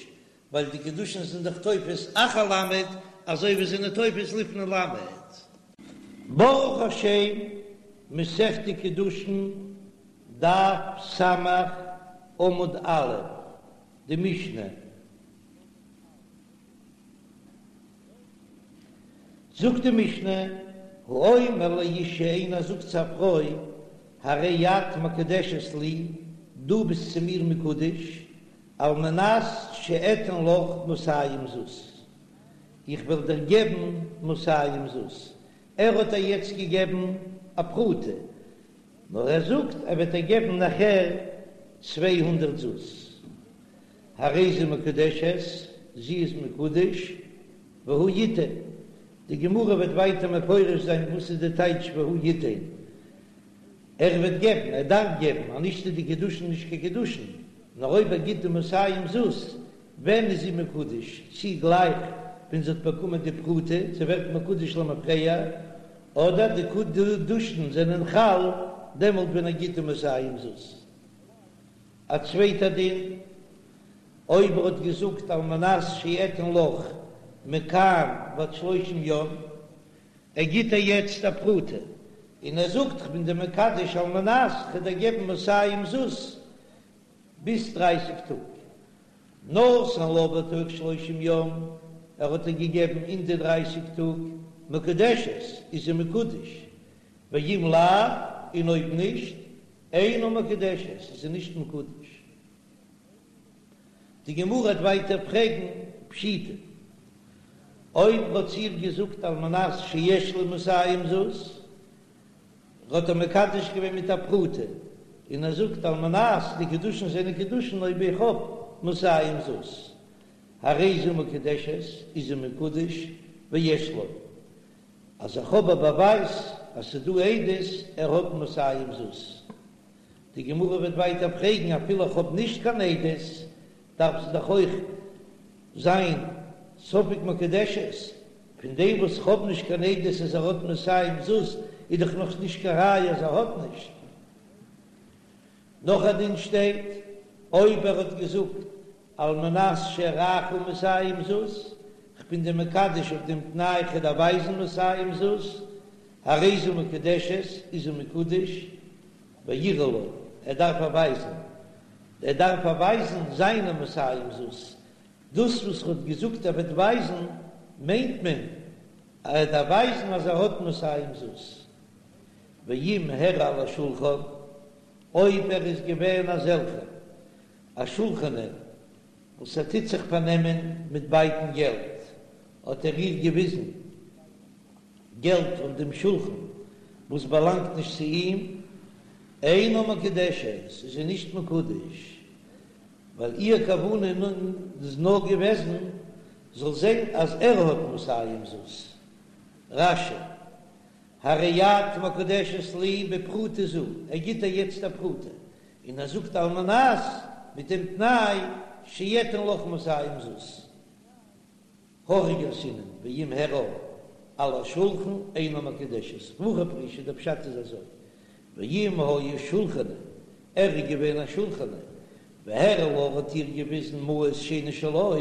ווייל די קידושין זענען דאך תופס אחר ל' אזוי ווי זענען תופס לפני ל'. ברוך השם, מסכת קידושין, דף ס', עמוד א', די משנה. זאגט די משנה, האומר לאשה איינער זאגט צו א פרוי, הרי את מקודשת לי, דו ביסט צו מיר מקודש, על מנת שאתן לך מאתים זוז, איך וועל דיר געבן מאתים זוז, ער האט איר יעצט געגעבן א פרוטה, נאר ער זאגט ער וועט איר געבן נאכער 200 זוז, הרי זו מקודשת, זי איז מקודש, והוא יתן, די גמרא וועט ווייטער מפרש זיין וואס איז די טייטש והוא יתן, ער וועט געבן, ער דארף געבן, אז נישט איז די קידושין נישט קיין קידושין, נאר אויב ער גיט די מאתים זוז, ווען איז זי מקודש, צי גלייך ווען זי האט באקומען די פרוטה, זי ווערט מקודש למפרע, אדער די קידושין זענען חל דעמאלט ווען ער גיט די מאתים זוז. א צווייטע דין, אויב ער האט געזאגט על מנת שאתן לך מכאן ועד שלושים יום, ער גיט איר יעצט א פרוטה, און ער זאגט כ'בין דיר מקדש על מנת כ'וועל דיר געבן מאתים זוז ביז דרייסיג טאג, נתן לה בתוך שלושים יום, ער האט איר געגעבן אין די דרייסיג טאג, מקודשת, איז זי מקודש, ואם לאו, און אויב נישט, אינה מקודשת, איז זי נישט מקודש. די גמרא וועט ווייטער פרעגן פשיטא, אויב האט זי איר געזאגט על מנת שיש לי מאתים זוז, האט ער מקדש געווען מיט א פרוטה, און ער זאגט על מנת די קידושין זענען קידושין אויב איך האב מאתים זוז, הרי זו מקודשת, איז זי מקודש, ויש לו, אז איך האב א באווייז אז ס'איז דא עדות ער האט מאתים זוז. די גמרא וועט ווייטער פרעגן אפילו איך האב נישט קיין עדות דארף זי דאך אויך זיין ספק מקודשת, פון דעם וואס איך האב נישט קיין עדות אז ער האט מאתים זוז איז דאך נאך נישט קיין ראיה אז ער האט נישט. נאך א דין שטייט אויב ער האט געזאגט על מנת שאראך מאתים זוז, כ'בין דיר מקדש אויף דעם תנאי כ'וועל דיר ווייזן מאתים זוז, הרי זו מקודשת, איז זי מקודש, ויראה לה, ער דארף איר ווייזן, ער דארף איר ווייזן זיינע מאתים זוז, דאס וואס ער האט געזאגט ער וועט ווייזן, מיינט מען אז ער דארף ווייזן אז ער האט מאתים זוז, ואם הראה על השולחן, אויב ער איז געווען אזעלכער א שולחני וואס ער טוט זיך פארנעמען מיט בייטן געלט, האט ער איר געוויזן געלט אויף דעם שולחן וואס באלאנגט נישט צו אים, אינה מקודשת, איז זי נישט מקודש, ווייל איר כוונה איז נאר געוועזן זאל זען אז ער האט מאתים זוז. רש"י, הרי את מקודשת לי בפרוטה זו, ער גיט איר יעצט א פרוטה, און ער זאגט על מנת מיט דעם תנאי שאתן לך מאתים זוז. הכי גרסינן ואם הראה על השולחן אינה מקודשת והכי פירושא דער פשט איז אזוי ואם היה שולחני ער איז געווען א שולחני והראה לה האט איר געוויזן מעות שאינן שלו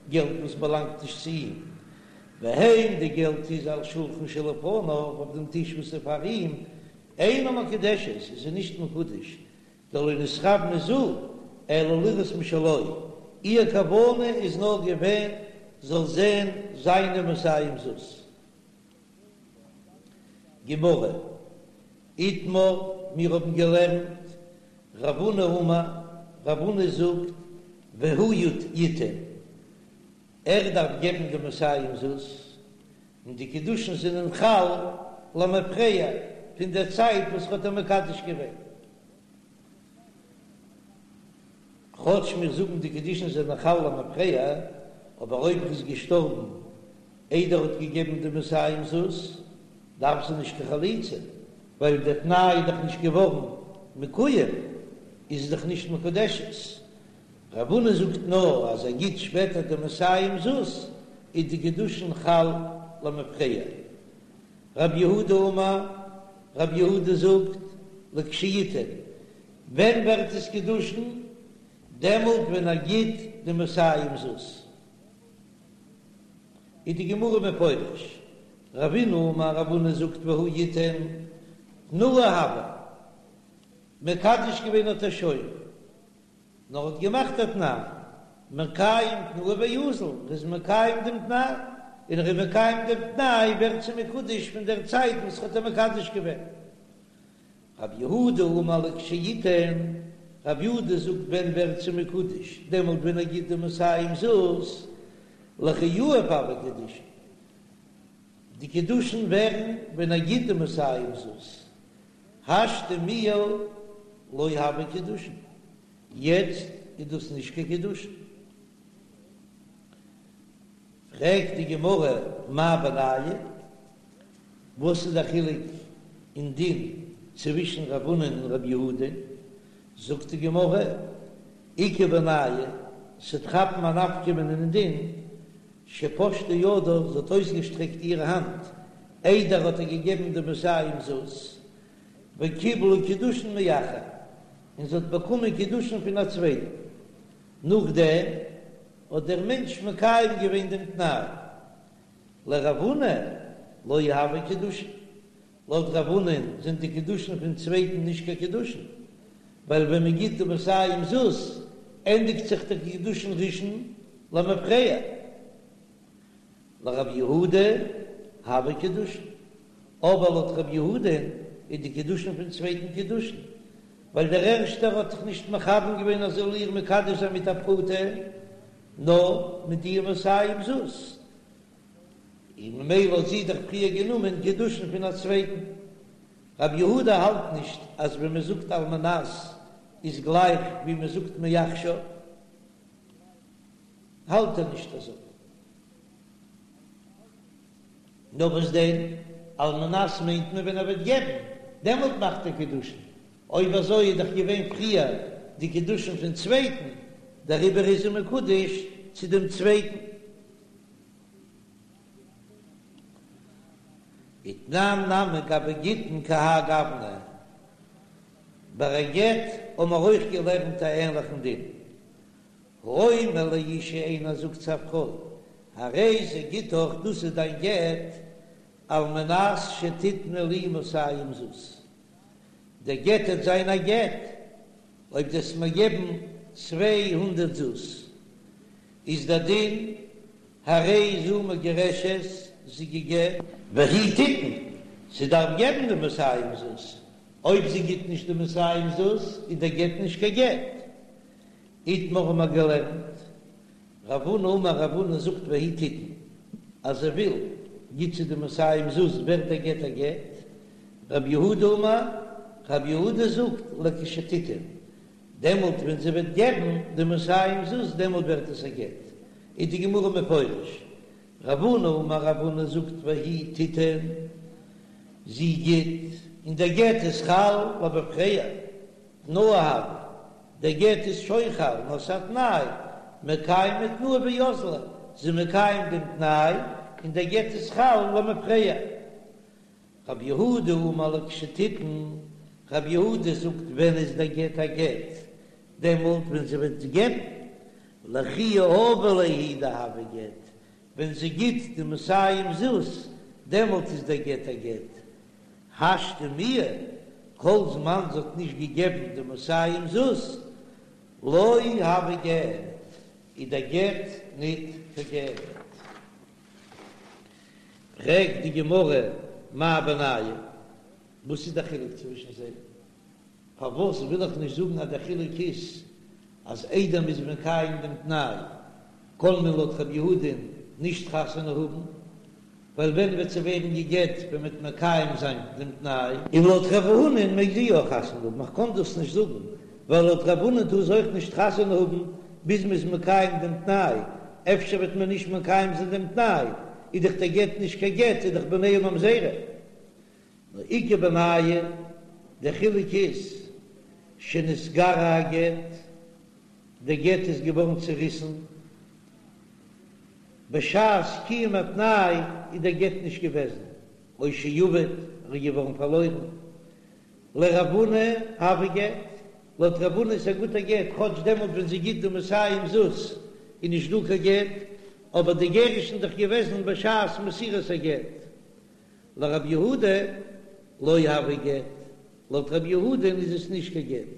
געלט וואס באלאנגט נישט צו אים והן די געלט איז על שולחן שלפניו אויף דעם טיש וואס איז פאר אים אינה מקודשת איז זי נישט מקודש דלא נתכוונה זו אלא לראות משלו, איר כוונה איז נאר געווען זאל זען זיינע מאתים זוז. גמרא, איתמר, מיר האבן געלערנט, רב הונא אמר, רב הונא זאגט, והוא יתן, ער דארף געבן די מאתים זוז, און די קידושין זענען חל למפרע פון דער צייט וואס ר'האט איר מקדש געווען. כאטש מיר זאגן די קידושין זענען חל למפרע, אבער אויב ר'איז געשטארבן איידער ר'האט געגעבן די מאתים זוז, דארף זי נישט קיין חליצה, ווייל דער תנאי איז דאך נישט געווארן מקוים, איז זי דאך נישט מקודשת. רב הונא זאגט נאר אז ער גיט שפעטער די מאתים זוז איז די קידושין חל למפרע. רב יהודה אמר, רב יהודה זאגט, לכשיתן, ווען ווערט עס קידושין? דעמאלט ווען ער גיט די מאתים זוז. איז די גמרא מפרש, רבינא אמר, רב הונא זאגט והוא יתן, תנאה הוה, מקדש געווען האט ער שוין. נאר האט געמאכט א תנאי, מקיים תנאו ואזיל, ער איז מקיים דעם תנאי, און ער איז מקיים דעם תנאי ווערט זי מקודש פון דער צייט וואס ער האט איר מקדש געווען. רב יהודה אמר לכשיתן, רב יהודה זאגט ווען ווערט זי מקודש, דעמאלט ווען ער גיט די מאתים זוז, לכי יהיב הוו קידושין, די קידושין ווערן ווען ער גיט די מאתים זוז, השתא מיהא לא הוו קידושין, יעצט איז דאס נישט קיין קידושין. פרעגט די גמרא מאי בינייהו, וואס איז די חילוק אין דין צווישן רב הונא און רב יהודה? זאגט די גמרא, איכא בינייהו, ס'וועט כאפן א נפקא מינה אין דין, שפשטה ידה, זי האט אויסגעשטרעקט איר האנט איידער האט ער געגעבן די מאתים זוז, וקיבלה קידושין מאחר, און זי האט באקומען קידושין פון א צווייטן, נאכדעם האט דער מענטש מקיים געווען דעם תנאי. לרב הונא לא הוו קידושין, לויט רב הונא'ן זענען די קידושין פון צווייטן נישט קיין קידושין, ווייל ווען מען גיט די מאתים זוז ענדיגט זיך די קידושין ראשון למפרע. לרב יהודה הוו קידושין, אבער לויט רב יהודה'ן איז די קידושין פון צווייטן קידושין, ווייל דער ערשטער האט זיך נישט מכוון געווען אז ער זאל איר מקדש זיין מיט א פרוטה, נאר מיט די מאתים זוז, און ממילא האט זי דאך פריער גענומען קידושין פון א צווייטן. רב יהודה האלט נישט אז ווען מען זאגט על מנת איז גלייך ווי מען זאגט מעכשיו, האלט ער נישט אזוי. נאר וואס דען, על מנת מיינט מען ווען ער וועט געבן, דעמאלט מאכט ער קידושין, אויב אזוי איז דאך געווען פריער די קידושין פון צווייטן, דעריבער איז זי מקודש צו דעם צווייטן. ותנן נמי גבי גיטין כהאי גוונא, ביי א גט האבן מיר אויך געלערנט א ענליכן דין, האומר לאשה איינער זאגט צו א פרוי, הרי זה גיטך דאס איז דיין גט, על מנת שתתני לי מאתים זוז, דער גט וועט זיין א גט אויב דו וועסט מיר געבן 200 זוז, איז דער דין הרי זו מגורשת זי גע'גט, והיא תיתן, זי דארף געבן די מאתים זוז, אויב זי גיט נישט די מאתים זוז איז דער גט נישט קיין גט. איתמר האבן מיר געלערנט, רב הונא אמר רב הונא זאגט והיא תיתן, אז זי וויל, גיט זי די מאתים זוז ווערט דער גט א גט, רב יהודה אמר, רב יהודה זאגט לכשתיתן, דעמאלט ווען זי וועט געבן די מאתים זוז דעמאלט ווערט עס א גט, איז די גמרא מפרש, רב הונא אמר רב הונא זאגט והיא תיתן, זי גיט, און דער גט איז חל למפרע, תנאה הוי, דער גט איז שוין חל, נאר ס'איז א תנאי, מקיימא תנאה ואזלה, זי מקיים דעם תנאי, און דער גט איז חל למפרע. רב יהודה אמר לכשתיתן, רב יהודה זאגט ווען איז דער גט א גט, דעמאלט ווען זי וועט געבן, לכי יהבא ליה הוא דהוי גט, ווען זי גיט די מאתים זוז, דעמאלט איז דער גט א גט. השתא מיהא, כל זמן זי האט נישט געגעבן די מאתים זוז, לא הוי גט, איז דער גט ניט קיין גט. פרעגט די גמרא, מאי בינייהו? וואס איז דער חילוק צווישן זיי? פארוואס וויל איך נישט זאגן אז דער חילוק איז אז איידער מ'איז מקיים דעם תנאי קען מען לויט רב יהודה'ן נישט חתונה האבן, ווייל ווען וועט זי ווערן גע'גט ווען מ'וועט מקיים זיין דעם תנאי? און לויט רב הונא'ן מעג זי יא חתונה האבן, איך קען דאס נישט זאגן, ווייל לויט רב הונא'ן טאר זי אויך נישט חתונה האבן ביז מ'איז מקיים דעם תנאי, אפשר וועט מען נישט מקיים זיין דעם תנאי, איז דאך דער גט נישט קיין גט, איז דאך בניה ממזרים. נאר איכא בינייהו, דער חילוק איז, שנתקרע הגט, דער גט איז געווארן צעריסן, בשעת קיום התנאי איז דער גט נישט געוועזן, או שאבד, ער איז געווארן פארלוירן. לרב הונא הוי גט, לויט רב הונא איז א גוטער גט, כאטש דעמאלט ווען זי גיט די מאתים זוז איז נישט דא קיין גט, אבער די גירושין איז דאך געוועזן בשעת מסירת הגט. לרב יהודה לא הוי גט, לויט רב יהודה'ן איז עס נישט קיין גט.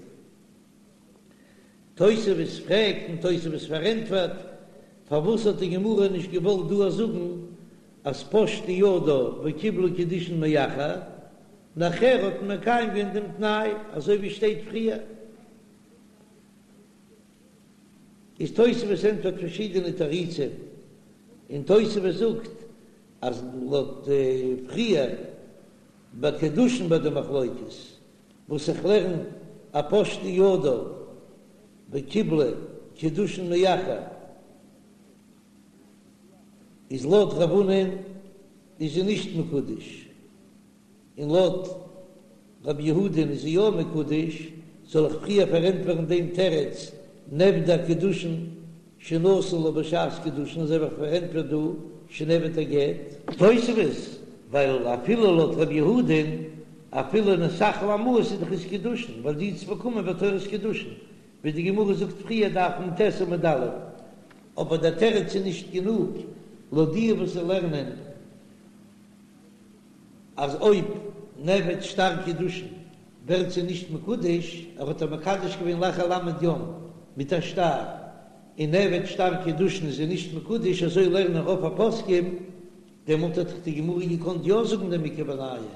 תוספות פרעגט און תוספות פארענטפערט, פארוואס האט די גמרא נישט געוואלט דא זאגן אז פשטה ידה וקיבלה קידושין מאחר, נאכער האט מען מקיים געווען דעם תנאי אזוי ווי שטייט פריער. איז תוספות ענטפערט פארשידענע תירוצים, און תוספות זאגט אז לויט פריער ביי קידושין ביי די מחלוקת וואס איך לערן א פשטה ידה וקיבלה קידושין מאחר איז לויט רב הונא'ן איז זי נישט מקודש. און לויט רבי יהודה'ן איז זי יא מקודש, זאל איך פריער פארענטפערן דעם תירוץ נאבדו הקידושין שנתן לה בשעת קידושין אזוי ווי איך פארענטפער דא שנאבד הגט? תוספות, ווייל אפילו לויט רבי יהודה'ן אפילו נתאכלו המעות איז דאך עס קידושין, ווייל זי האט עס באקומען בתורת קידושין, ווי די גמרא זאגט פריער דף נ"ט עמוד א', אבער דער תירוץ איז נישט גענוג לויט די וואס לערנען. אז אויב נאבד שטר קידושין ווערט זי נישט מקודש, ער האט איר מקדש געווען לאחר ל' יום מיט א שטר, און נאבד שטר קידושין איז זי נישט מקודש, אזוי לערנען רוב הפוסקים, דעמאלט האט דאך די גמרא געקאנט יא זאגן דעם איכא בינייהו,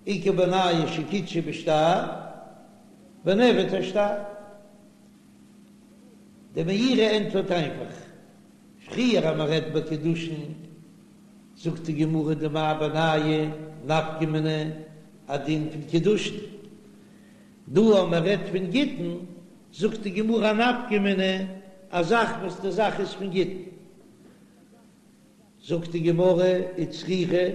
איכא בינייהו שקידשה בשטר ונאבד השטר. דער מאירי ענטפערט איינפאך, פריער אז מען רעדט ביי קידושין, זאגט די גמרא דמאי בינייהו נפקא מינה א דין פון קידושין, דא אז מען רעדט פון גיטין זאגט די גמרא א נפקא מינה א זאך וואס די זאך איז פון גיטין, זאגט די גמרא וצריכא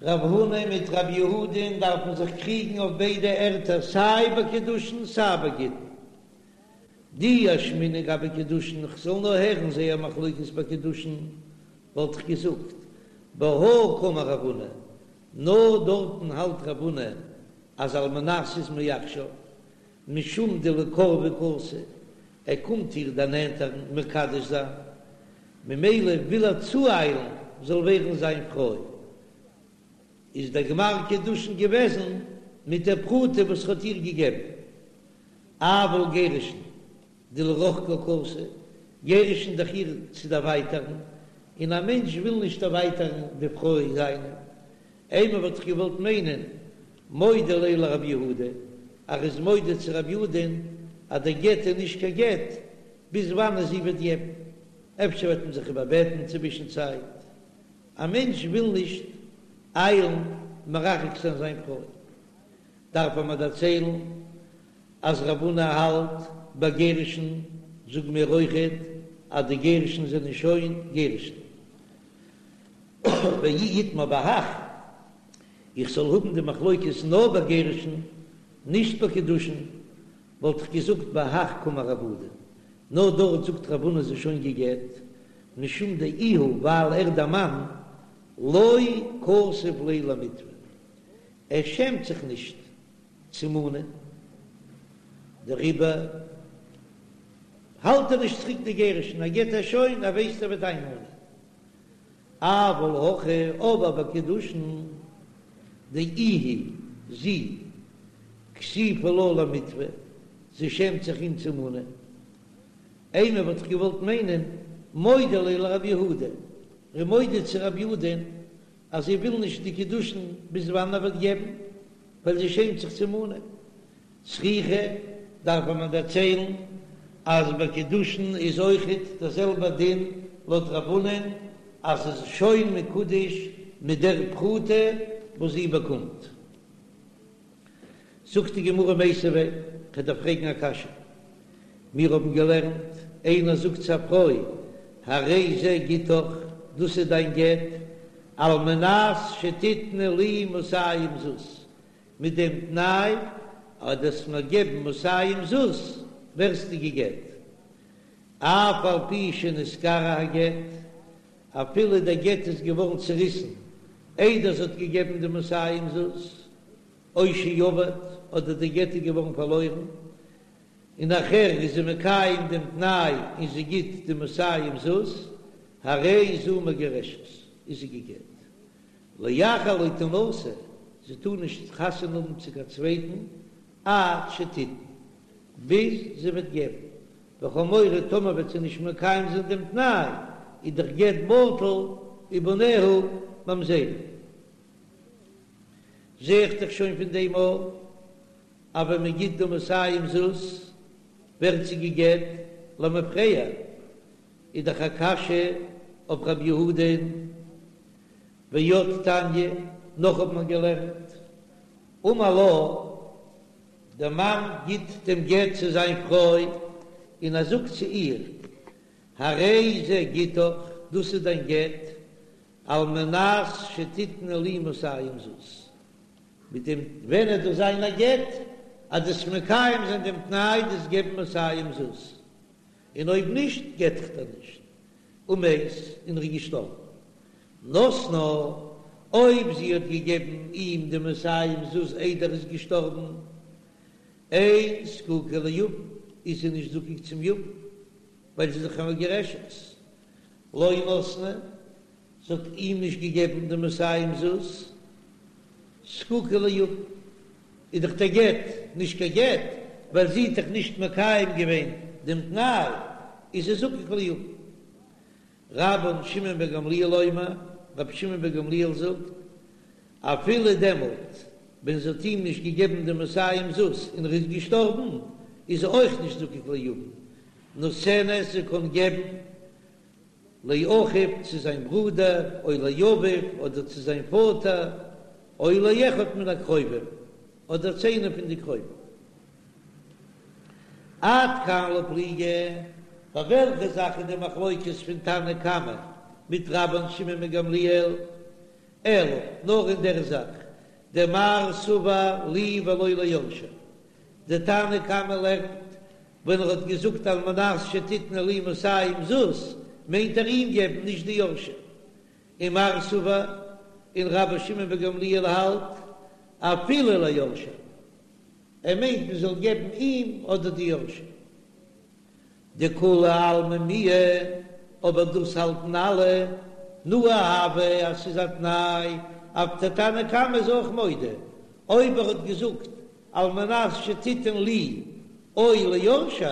רב הונא מיט רב יהודה'ן דארפן זיך קריגן אויף ביידע ערטער סיי ביי קידושין סיי ביי גיטין. דאי אשמעינן גבי קידושין, כ'זאל נאר הערן זייער מחלוקת ביי קידושין, וואלט איך געזאגט, בהא קאמר רב הונא, נאר דארטן האלט רב הונא אז על מנת איז מעכשיו, משום דלקורבה קאתי, ער קומט איר דערנענטערן מקדש זיין, ממילא וויל ער צואיילן זאל ווערן זיין פרוי. איז דער גמר קידושין געוועזן מיט דער פרוטה וואס ער האט איר געגעבן. אבל גירושין דלרחוקה קאתי, גירושין דאך איר צו דערווייטערן, און א מענטש וויל נישט דערווייטערן די פרוי זיינע. אימא וואלט איך געוואלט מיינען מודה ליה לרב יהודה, ער איז מודה צו רב יהודה'ן אז דער גט איז נישט קיין גט, ביז וואנען זי וועט געבן, אפשר וועט מען זיך איבערבעטן צווישן צייט. א מענטש וויל נישט איילן מרחק זיין זיין פרוי, דארף ער מיר דערציילן אז רב הונא האלט ביי גירושין, זאג מיר אויכעט אז די גירושין זענען שוין גירושין. ואי איתמר בהך, איך זאל האבן די מחלוקת נאר ביי גירושין, נישט ביי קידושין, וואלט איך געזאגט בהך קאמר רב הונא, נאר דארט זאגט רב הונא זי איז שוין גע'גט, משום דאיהו ווייל ער דער מאן לא כסיף ליה למיתבא, ער שעמט זיך נישט צו מאנען, דעריבער האלט ער נישט צוריק די גירושין, ער געט איר שוין, ער ווייסט ער וועט איינמאנען. אבל הכא, אבער ביי קידושין דאיהי, זי, כסיפא לה למיתבא, זי שעמט זיך אים צו מאנען. אימא וואלט איך געוואלט מיינען מודה ליה לרב יהודה, ער איז מודה צו רב יהודה'ן אז זי וויל נישט די קידושין ביז וואנען ער וועט געבן, ווייל זי שעמט זיך צו מאנען. צריכא, דארף מען דערציילן אז ביי קידושין איז אויכעט דער זעלבער דין לויט רב הונא'ן אז עס איז שוין מקודש מיט דער פרוטה וואס זי באקומט. זאגט די גמרא מיתיבי, כ'דארף פרעגן א קשיא, מיר האבן געלערנט, איינער זאגט צו א פרוי, הרי זה גיטך, דאס איז דיין גט, על מנת שתתני לי מאתים זוז, מיט דעם תנאי אז דו וועסט מיר געבן מאתים זוז, ווערסטו גע'גט. אף על פי שנתקרע הגט, אפילו דער גט איז געווארן צעריסן איידער זי האט געגעבן די מאתים זוז, או שאבד, אדער די גט איז געווארן פארלוירן, און נאכער איז זי מקיים דעם תנאי און זי גיט די מאתים זוז, הרי זו מגורשת, איז זי גע'גט. לאחר לא תנשא, זי טאר נישט חתונה האבן צו קיין צווייטן עד שתיתן, ביז זי וועט געבן, ווייל כ'האב מורא טאמער וועט זי נישט מקיים זיין דעם תנאי, איז דער גט בטל ובניה ממזרים. זע איך דאך שוין פון דעם אויך אז ווען מען גיט די מאתים זוז ווערט זי גע'גט. למפרע, איז דאך א קשיא אויף רב יהודה'ן, ועוד תניא, נאך האט מען געלערנט, אמר לה, דער מאן גיט דעם גט צו זיין פרוי, און ער זאגט צו איר, הרי זה גיטך, דאס איז דיין גט, על מנת שתתני לי מאתים זוז. מיט דעם ווען עט דאס זיין א גט, אז דו'סט מקיים זיין דעם תנאי דו'סט געבן מאתים זוז, און אויב נישט גט איך דיר נישט, ומת, און ער איז געשטארבן. נתנה, אויב זי האט געגעבן אים די מאתים זוז איידער ער איז געשטארבן, אין זקוקה ליבם, איז זי נישט זקוק צום יבם, ווייל זי איז דאך א מגורשת. לא נתנה, זי האט אים נישט געגעבן די מאתים זוז, זקוקה ליבם, איז דאך דער גט נישט קיין גט, ווייל זי האט דאך נישט מקיים געווען דעם תנאי, איז זי זקוק ליבם. רבן שמעון בן גמליאל אומר, רבי שמעון בן גמליאל זאגט, אפילו דעמאלט ווען זי האט אים נישט געגעבן די מאתים זוז און ער איז געשטארבן, איז זי אויך נישט זקוק ליבם, נותנת זי קען געבן לאחיו צו זיין ברודער, או לאביו אדער צו זיין פאטער, או לאחד מן הקרובים אדער צו איינעם פון די קרובים. עד כאן לא פליגי, ביי וועלכע זאך איז די מחלוקת פון תנא קמא מיט רבן שמעון בן גמליאל? אלא נאר אין דער זאך, דמר סבר לי ולא ליורשי, די תנא קמא לערנט ווען ער האט געזאגט על מנת שתתני לי מאתים זוז מיינט ער אים געבן נישט די יורשים, ומר סבר און רבן שמעון בן גמליאל האלט אפילו ליורשי, ער מיינט מען זאל געבן אים אדער די יורשים. דכולי עלמא מיהא, אבער דאס האלטן אלע, תנאה הוי אז ס'איז א תנאי, אויף דער תנא קמא איז אויך מודה, אויב ער האט געזאגט על מנת שתתן לי או ליורשי,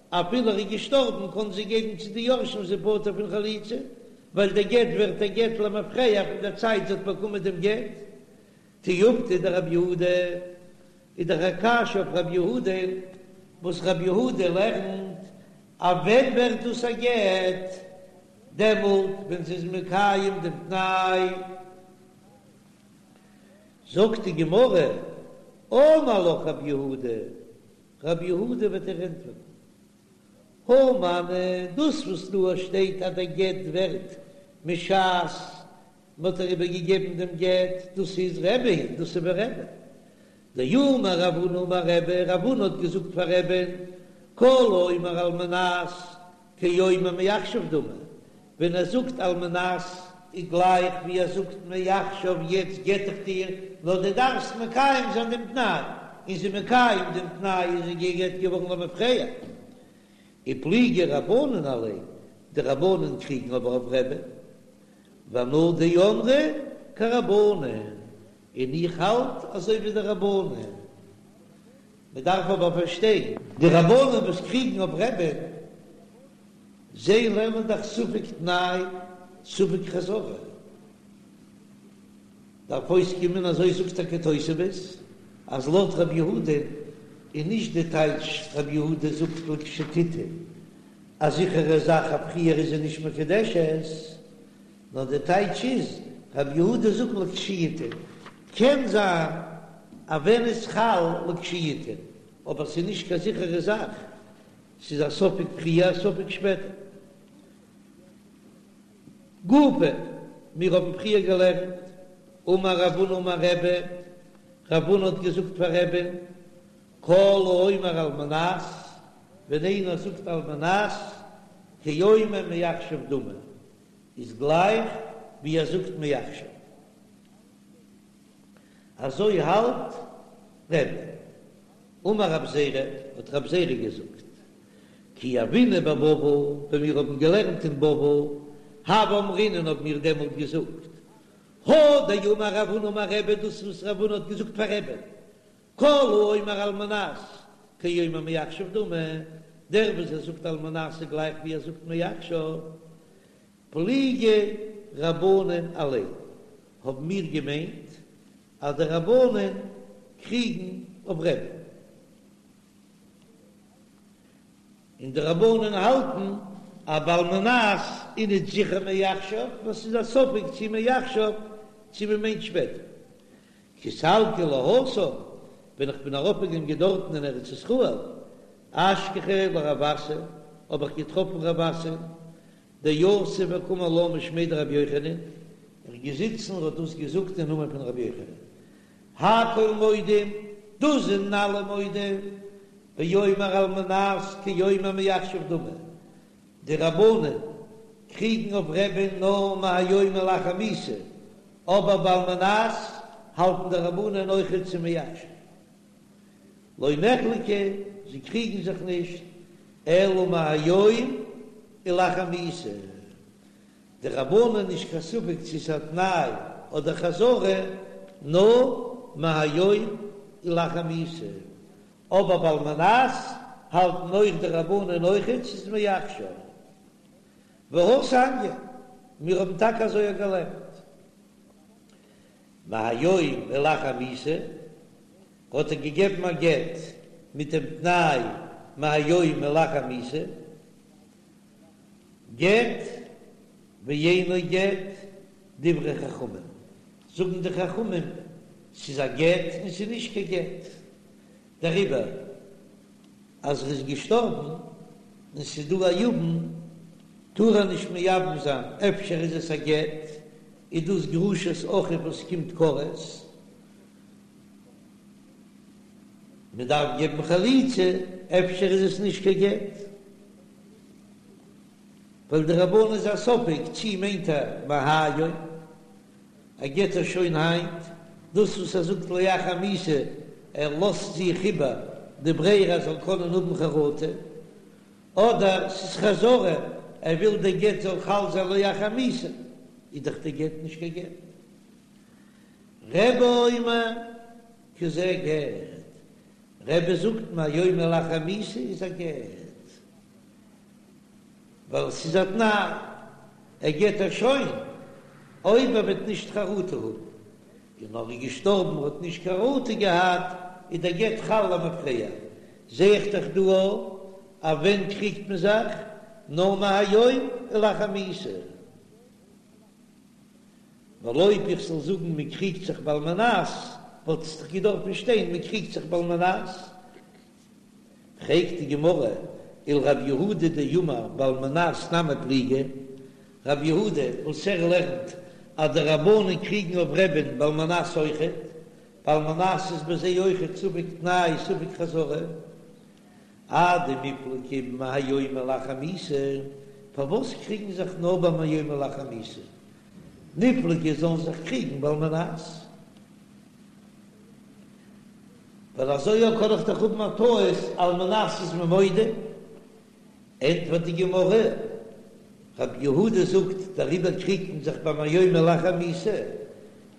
אפילו ער איז געשטארבן קען זי געבן צו די יורשים זי פטור פון חליצה, ווייל דער גט ווערט א גט למפרע פון דער צייט זי האט באקומען דעם גט. תיובתא דרב יהודה איז דאך א קשיא אויף רב יהודה, וואס רב יהודה לערנט אז ווען ווערט דאס א גט? דעמאלט ווען זי איז מקיים דעם תנאי. זאגט די גמרא, אמר לך רב יהודה, רב יהודה וועט דיר ענטפערן, הא מני, דאס וואס דא שטייט אז דער גט ווערט משעת מען האט איר איבערגעגעבן דעם גט, דאס איז רבי היא, דאס איז ווי רבי. דאמר רב הונא אמר רבי, רב הונא האט געזאגט פאר רבי'ן, כל האומר על מנת כאומר מעכשיו דמי, ווען ער זאגט על מנת איז גלייך ווי ער זאגט מעכשיו יעצט גט איך דיר, נאר דו דארפסט מקיים זיין דעם תנאי, און זי מקיים דעם תנאי איז זי גע'גט געווארן למפרע. ופליגי רבנן עליה, די רבנן קריגן אבער אויף רבי, ואנא דאמרי כרבנן, און איך האלט אזוי ווי די רבנן. מען דארף אבער פארשטיין, די רבנן וואס קריגן אויף רבי'ן, זיי לערנען דאך ספק תנאי ספק חזרה, דארף אויסקומען אזוי זאגט טאקע תוספות, אז לויט רבי יהודה איז נישט די טייטש רבי יהודה זאגט לכשתיתן א זיכערע זאך אז פריער איז זי נישט מקודשת, נאר די טייטש איז רבי יהודה זאגט לכשיתן, קען זיין אז ווען איז חל לכשיתן, אבער ס'איז נישט קיין זיכערע זאך, ס'איז א ספק פריער א ספק שפעטער. גופא, מיר האבן פריער געלערנט, אמר רב הונא אמר רבי, רב הונא האט געזאגט פאר רבי'ן, כל האומר על מנת, ווען איינער זאגט על מנת, כאומר מעכשיו דמי, איז גלייך ווי ער זאגט מעכשיו. אזוי האלט רבי. אמר רב זירא, האט רב זירא געזאגט, כי הוינן בבבל, ווען מיר האבן געלערנט אין בבל, הוה אמרינן האבן מיר דעמאלט געזאגט, הא דאמר רב הונא אמר רבי, דאס וואס רב הונא האט געזאגט פאר רבי, כל האומר על מנת כאומר מעכשיו דמי, דער וואס ער זאגט על מנת איז גלייך ווי ער זאגט מעכשיו, פליגי רבנן עליה, האבן מיר געמיינט אז די רבנן קריגן אויף רבי'ן. און די רבנן האלטן אז בעל מנת איז נישט זיכער מעכשיו, נאר ס'איז א ספק צי מעכשיו צי מ'מיינט שפעטער. כי סלקי להתם, ווען איך בין ארויפגעגאנגען דארטן אין ארץ ישראל, אשכחתיה לרב אסי, האב איך געטראפן רב אסי, דיתיב וקאמר לה משמיה דרבי יוחנן, ער איז געזיצן און האט דאס געזאגט אין נאמען פון רבי יוחנן. הכל מודים, דאס זענען אלע מודה, באומר על מנת כאומר מעכשיו דמי, די רבנן קריגן אויף רבי'ן נאר מהיום ולאחר מיתה, אבער בעל מנת האלטן די רבנן אויכעט ס'איז מעכשיו. לא נחלקו, זיי קריגן זיך נישט, אלא מהיום ולאחר מיתה. די רבנן נישט קיין ספק צו ס'איז א תנאי אדער חזרה, נאר מהיום ולאחר מיתה. אבער בעל מנת האלטן אויך די רבנן אויכעט ס'איז מעכשיו. והתניא, מיר האבן טאקע אזוי געלערנט. מהיום ולאחר מיתה, האט ער געגעבן א גט מיט דעם תנאי מהיום ולאחר מיתה, גט ואינו גט, דברי חכמים, זאגן די חכמים ס'איז א גט און ס'איז נישט קיין גט, דעריבער אז ער איז געשטארבן און ס'איז דא א יבם טאר ער נישט מייבם זיין, אפשר איז עס א גט, איז דאס גרושת אחיו וואס קומט כרת, מען דארף געבן חליצה, אפשר איז עס נישט קיין גט, ווייל די רבנן איז א ספק צי מיינט ער מהיום. ער גט איר שוין היינט, דאס וואס ער זאגט לאחר מיתה, ער לאזט זיך איבער די ברירה ער זאל קענען האבן חרטה, אדער ס'איז חזרה, ער וויל די גט זאל חל זיין לאחר מיתה, איז דאך די גט נישט קיין גט. רבי אומר כזה גט, רבי זאגט מהיום ולאחר מיתה איז א גט. ווייל ס'איז א תנאי, ער גט איר שוין אויב ער וועט נישט חרטה האבן, און ער איז געשטארבן האט נישט חרטה געהאט, איז דער גט חל למפרע. זע איך דאך דא אז ווען קריגט מען זיך? נאר מהיום ולאחר מיתה. ווייל אויב איך זאל זאגן מען קריגט זיך בעל מנת, וואלט עס דאך געדארפן שטיין מען קריגט זיך בעל מנת. פרעגט די גמרא, ולרב יהודה דאמר בעל מנת נמי פליגי, רב יהודה וואס ער לערנט אז די רבנן קריגן אויף רבי'ן בעל מנת אויכעט, בעל מנת איז ביי זיי אויכעט ספק תנאי ספק חזרה, אדמיפלגי מהיום ולאחר מיתה, פארוואס קריגן זיך נאר ביי מהיום ולאחר מיתה, ניפלגו זאלן זיך קריגן בעל מנת. ווייל אזוי אויך קען איך דאך האבן א טעות על מנת איז מען מודה, ענטפערט די גמרא, רב יהודה זאגט דעריבער קריגט מען זיך ביי מהיום ולאחר מיתה,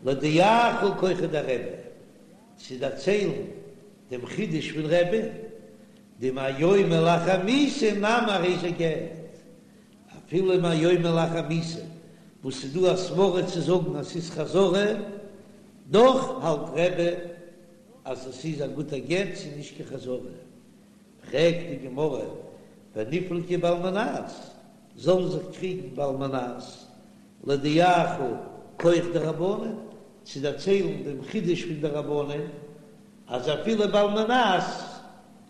להודיעך כחו דרבי, צו דערציילן דעם חידוש פון רבי'ן, דמהיום ולאחר מיתה נמי הרי זה גט, אפילו מהיום ולאחר מיתה, וואס ס'איז דא א סברא צו זאגן אז ס'איז חזרה, דאך האלט רבי אז עס איז א גוטע גט, ס'איז נישט קיין חזרה. פרעגט די גמרא, וניפלגו בעל מנת, זאלן זיך קריגן בעל מנת, להודיעך כח דרבנן, צו דערציילן דעם חידוש פון די רבנן, אז אפילו בעל מנת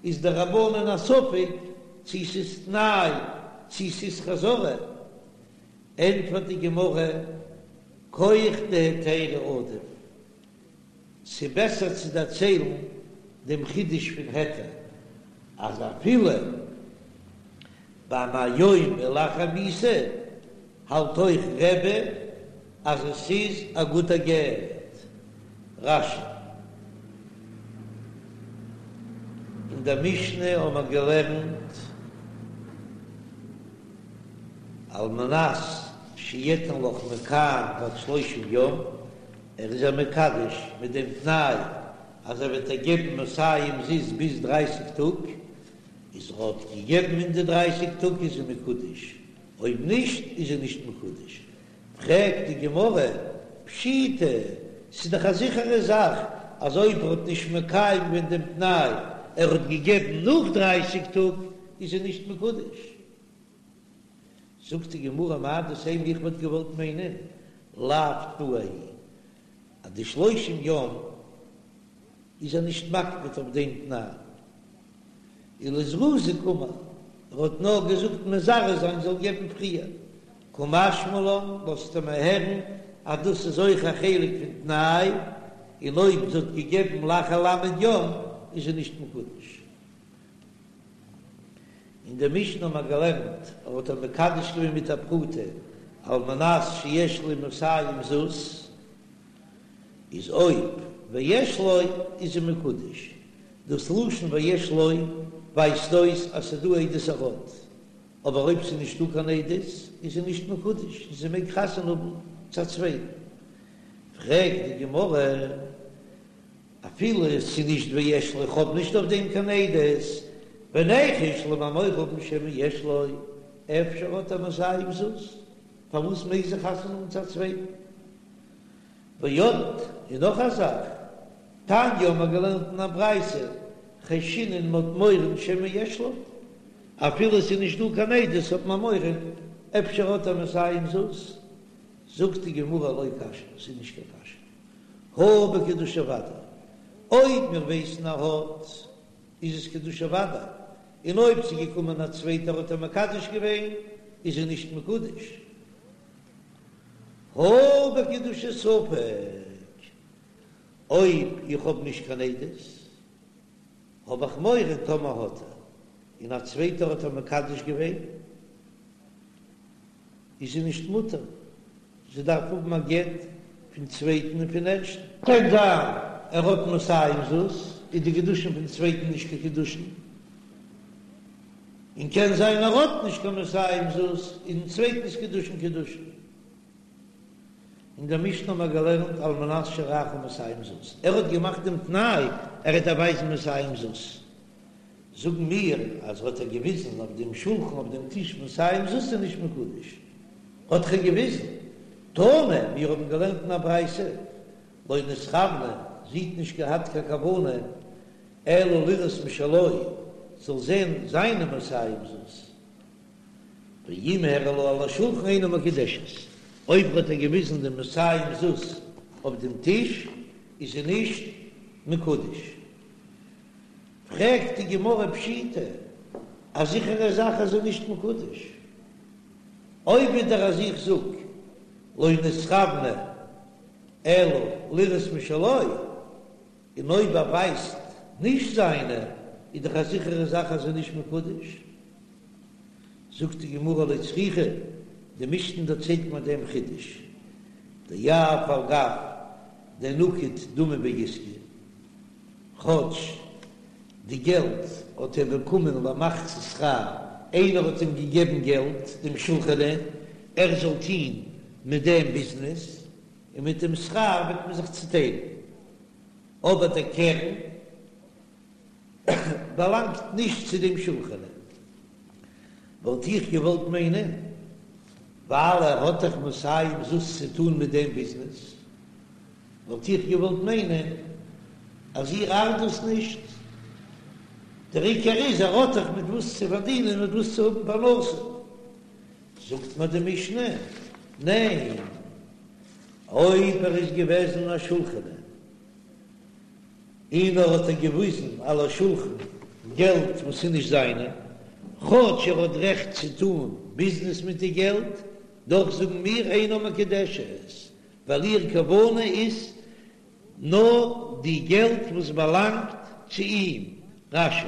איז די רבנן א ספק צי ס'איז תנאי צי ס'איז חזרה, ענטפערט די גמרא, כח דהיתרא עדיף, ס'בעסער צו דערציילן דעם חידוש פון היתר, אז אפילו ביי מהיום ולאחר מיתה האלט אויך רבי אז עס איז א גוטע גט. רש"י. אין דער משנה האבן מיר געלערנט על מנת שאתן לך מכאן ועד שלושים יום, ער איז איר מקדש מיט דעם תנאי אז ער וועט איר געבן מאתים זוז ביז דרייסיג טאג, איז ער האט געגעבן אין די דרייסיג טאג איז זי מקודש, אויב נישט איז זי נישט מקודש. פרעגט די גמרא, פשיטא, ס'איז דאך א זיכערע זאך אז אויב ער האט נישט מקיים געווען דעם תנאי, ער האט געגעבן נאך דרייסיג טאג, איז זי נישט מקודש. זאגט די גמרא מהו דתימא איך וואלט געוואלט מיינען לאו תנאי היא אז די שלושים יום איז ער נישט מקפיד אויף דעם תנאי ולזרוזי קאמר ער האט נאר געזאגט מזרז זיין זאל געבן פריער קא משמע לן לאזט ער מיר הערן אז דאס איז אויך א חלק פון תנאי און אויב זי האט געגעבן לאחר ל' יום איז זי נישט מקודש. אין די משנה האט מען געלערנט, ער האט איר מקדש געווען מיט א פרוטה על מנת שיש לי מאתים זוז, איז אויב ויש לו איז זי מקודש, דאס לשון ויש לו ווייזט אויס אז ס'איז דא עדות ער האט, אבער אויב ס'איז נישטא קיין עדות איז זי נישט מקודש און זי מעג חתונה האבן צו א צווייטן. פרעגט די גמרא. אפילו עס איז נישט ויש לו, איך האב נישט אויף דעם קיין עדות, וניחוש לאמיר מורא האבן שמא יש לו, אפשר האט ער מאתים זוז, פארוואס מעג זי חתונה האבן צו א צווייטן? ועוד, און נאך א זאך, תניא האבן מיר געלערנט אין א ברייתא, חיישינן מ'האט מורא שמא יש לו, אפילו עס איז נישט דא קיין עדות האט מען מורא, אפשר האט ער מאתים זוז, זאגט די גמרא לא קשיא, ס'איז נישט קיין קשיא. הא בקידושי ודאי, אויב מיר ווייסן ער האט, איז עס קידושי ודאי, און אויב ס'איז געקומען א צווייטער האט ער מקדש געווען, איז ער נישט מקודש. הא בקידושי ספק, אויב איך האב נישט קיין עדות, האב איך מורא טאמער האט ער, און א צווייטער האט ער מקדש געווען, איז זי נישט מותר, זי דארף האבן א גט פון צווייטן און פון ערשטן. קען זיין ער האט מאתים זוז, איז די קידושין פון צווייטן נישט קיין קידושין, און קען זיין ער האט נישט קיין מאתים זוז, איז דעם צווייטנס קידושין קידושין. אין דער משנה האבן מיר געלערנט על מנת שאראך מאתים זוז, ער האט געמאכט דעם תנאי ער וועט איר ווייזן מאתים זוז, זאגן מיר אז האט ער געוויזן אויף דעם שולחן אויף דעם טיש מאתים זוז איז נישט מקודש, האט ער געוויזן, תנא, מיר האבן געלערנט אין א ברייתא, לא נתכוונה, זי האט נישט געהאט קיין כוונה, אלא לראות משלו, זאל זען זיינע מאתים זוז, ואם הראה לה על השולחן אינה מקודשת, אויב האט ער געוויזן די מאתים זוז אויף דעם טיש איז זי נישט מקודש. פרעגט די גמרא פשיטא, א זיכערע זאך אז זי איז נישט מקודש, אויב ווידער אז איך זאג לא נתכוונה אלא לראות משלו, און אויב ער ווייזט נישט זיינע, איז דאך א זיכערע זאך אז זי איז נישט מקודש. זאגט די גמרא לא צריכא, די משנה דערציילט מיר דעם חידוש, דאף על גב דנקיט דמי בעיסקא, כאטש די געלט האט ער באקומען למחצית שכר, איינער האט אים געגעבן געלט, דעם שולחני, ער זאל טוהן מיט דעם ביזנעס, און מיט דעם שכר וועט מען זיך צוטיילן, אבער דער קרן באלאנגט נישט צו דעם שולחני. וואלט איך געוואלט מיינען, ווייל ער האט דאך מאתים זוז צו טוהן מיט דעם ביזנעס, וואלט איך געוואלט מיינען אז איר ארט דאס נישט, דער עיקר איז ער האט דאך מיט וואס צו פארדינען מיט וואס צו האבן פרנסה. זאגט מיר די משנה, ניין, אויב ער איז געוועזן א שולחני און ער האט איר געוויזן על השולחן געלט וואס איז נישט זיינע, כאטש ער האט רעכט צו טון ביזנעס מיט די געלט, דאך זאגן מיר אינה מקודשת, ווייל איר כוונה איז נאר די געלט וואס באלאנגט צו אים. רש"י.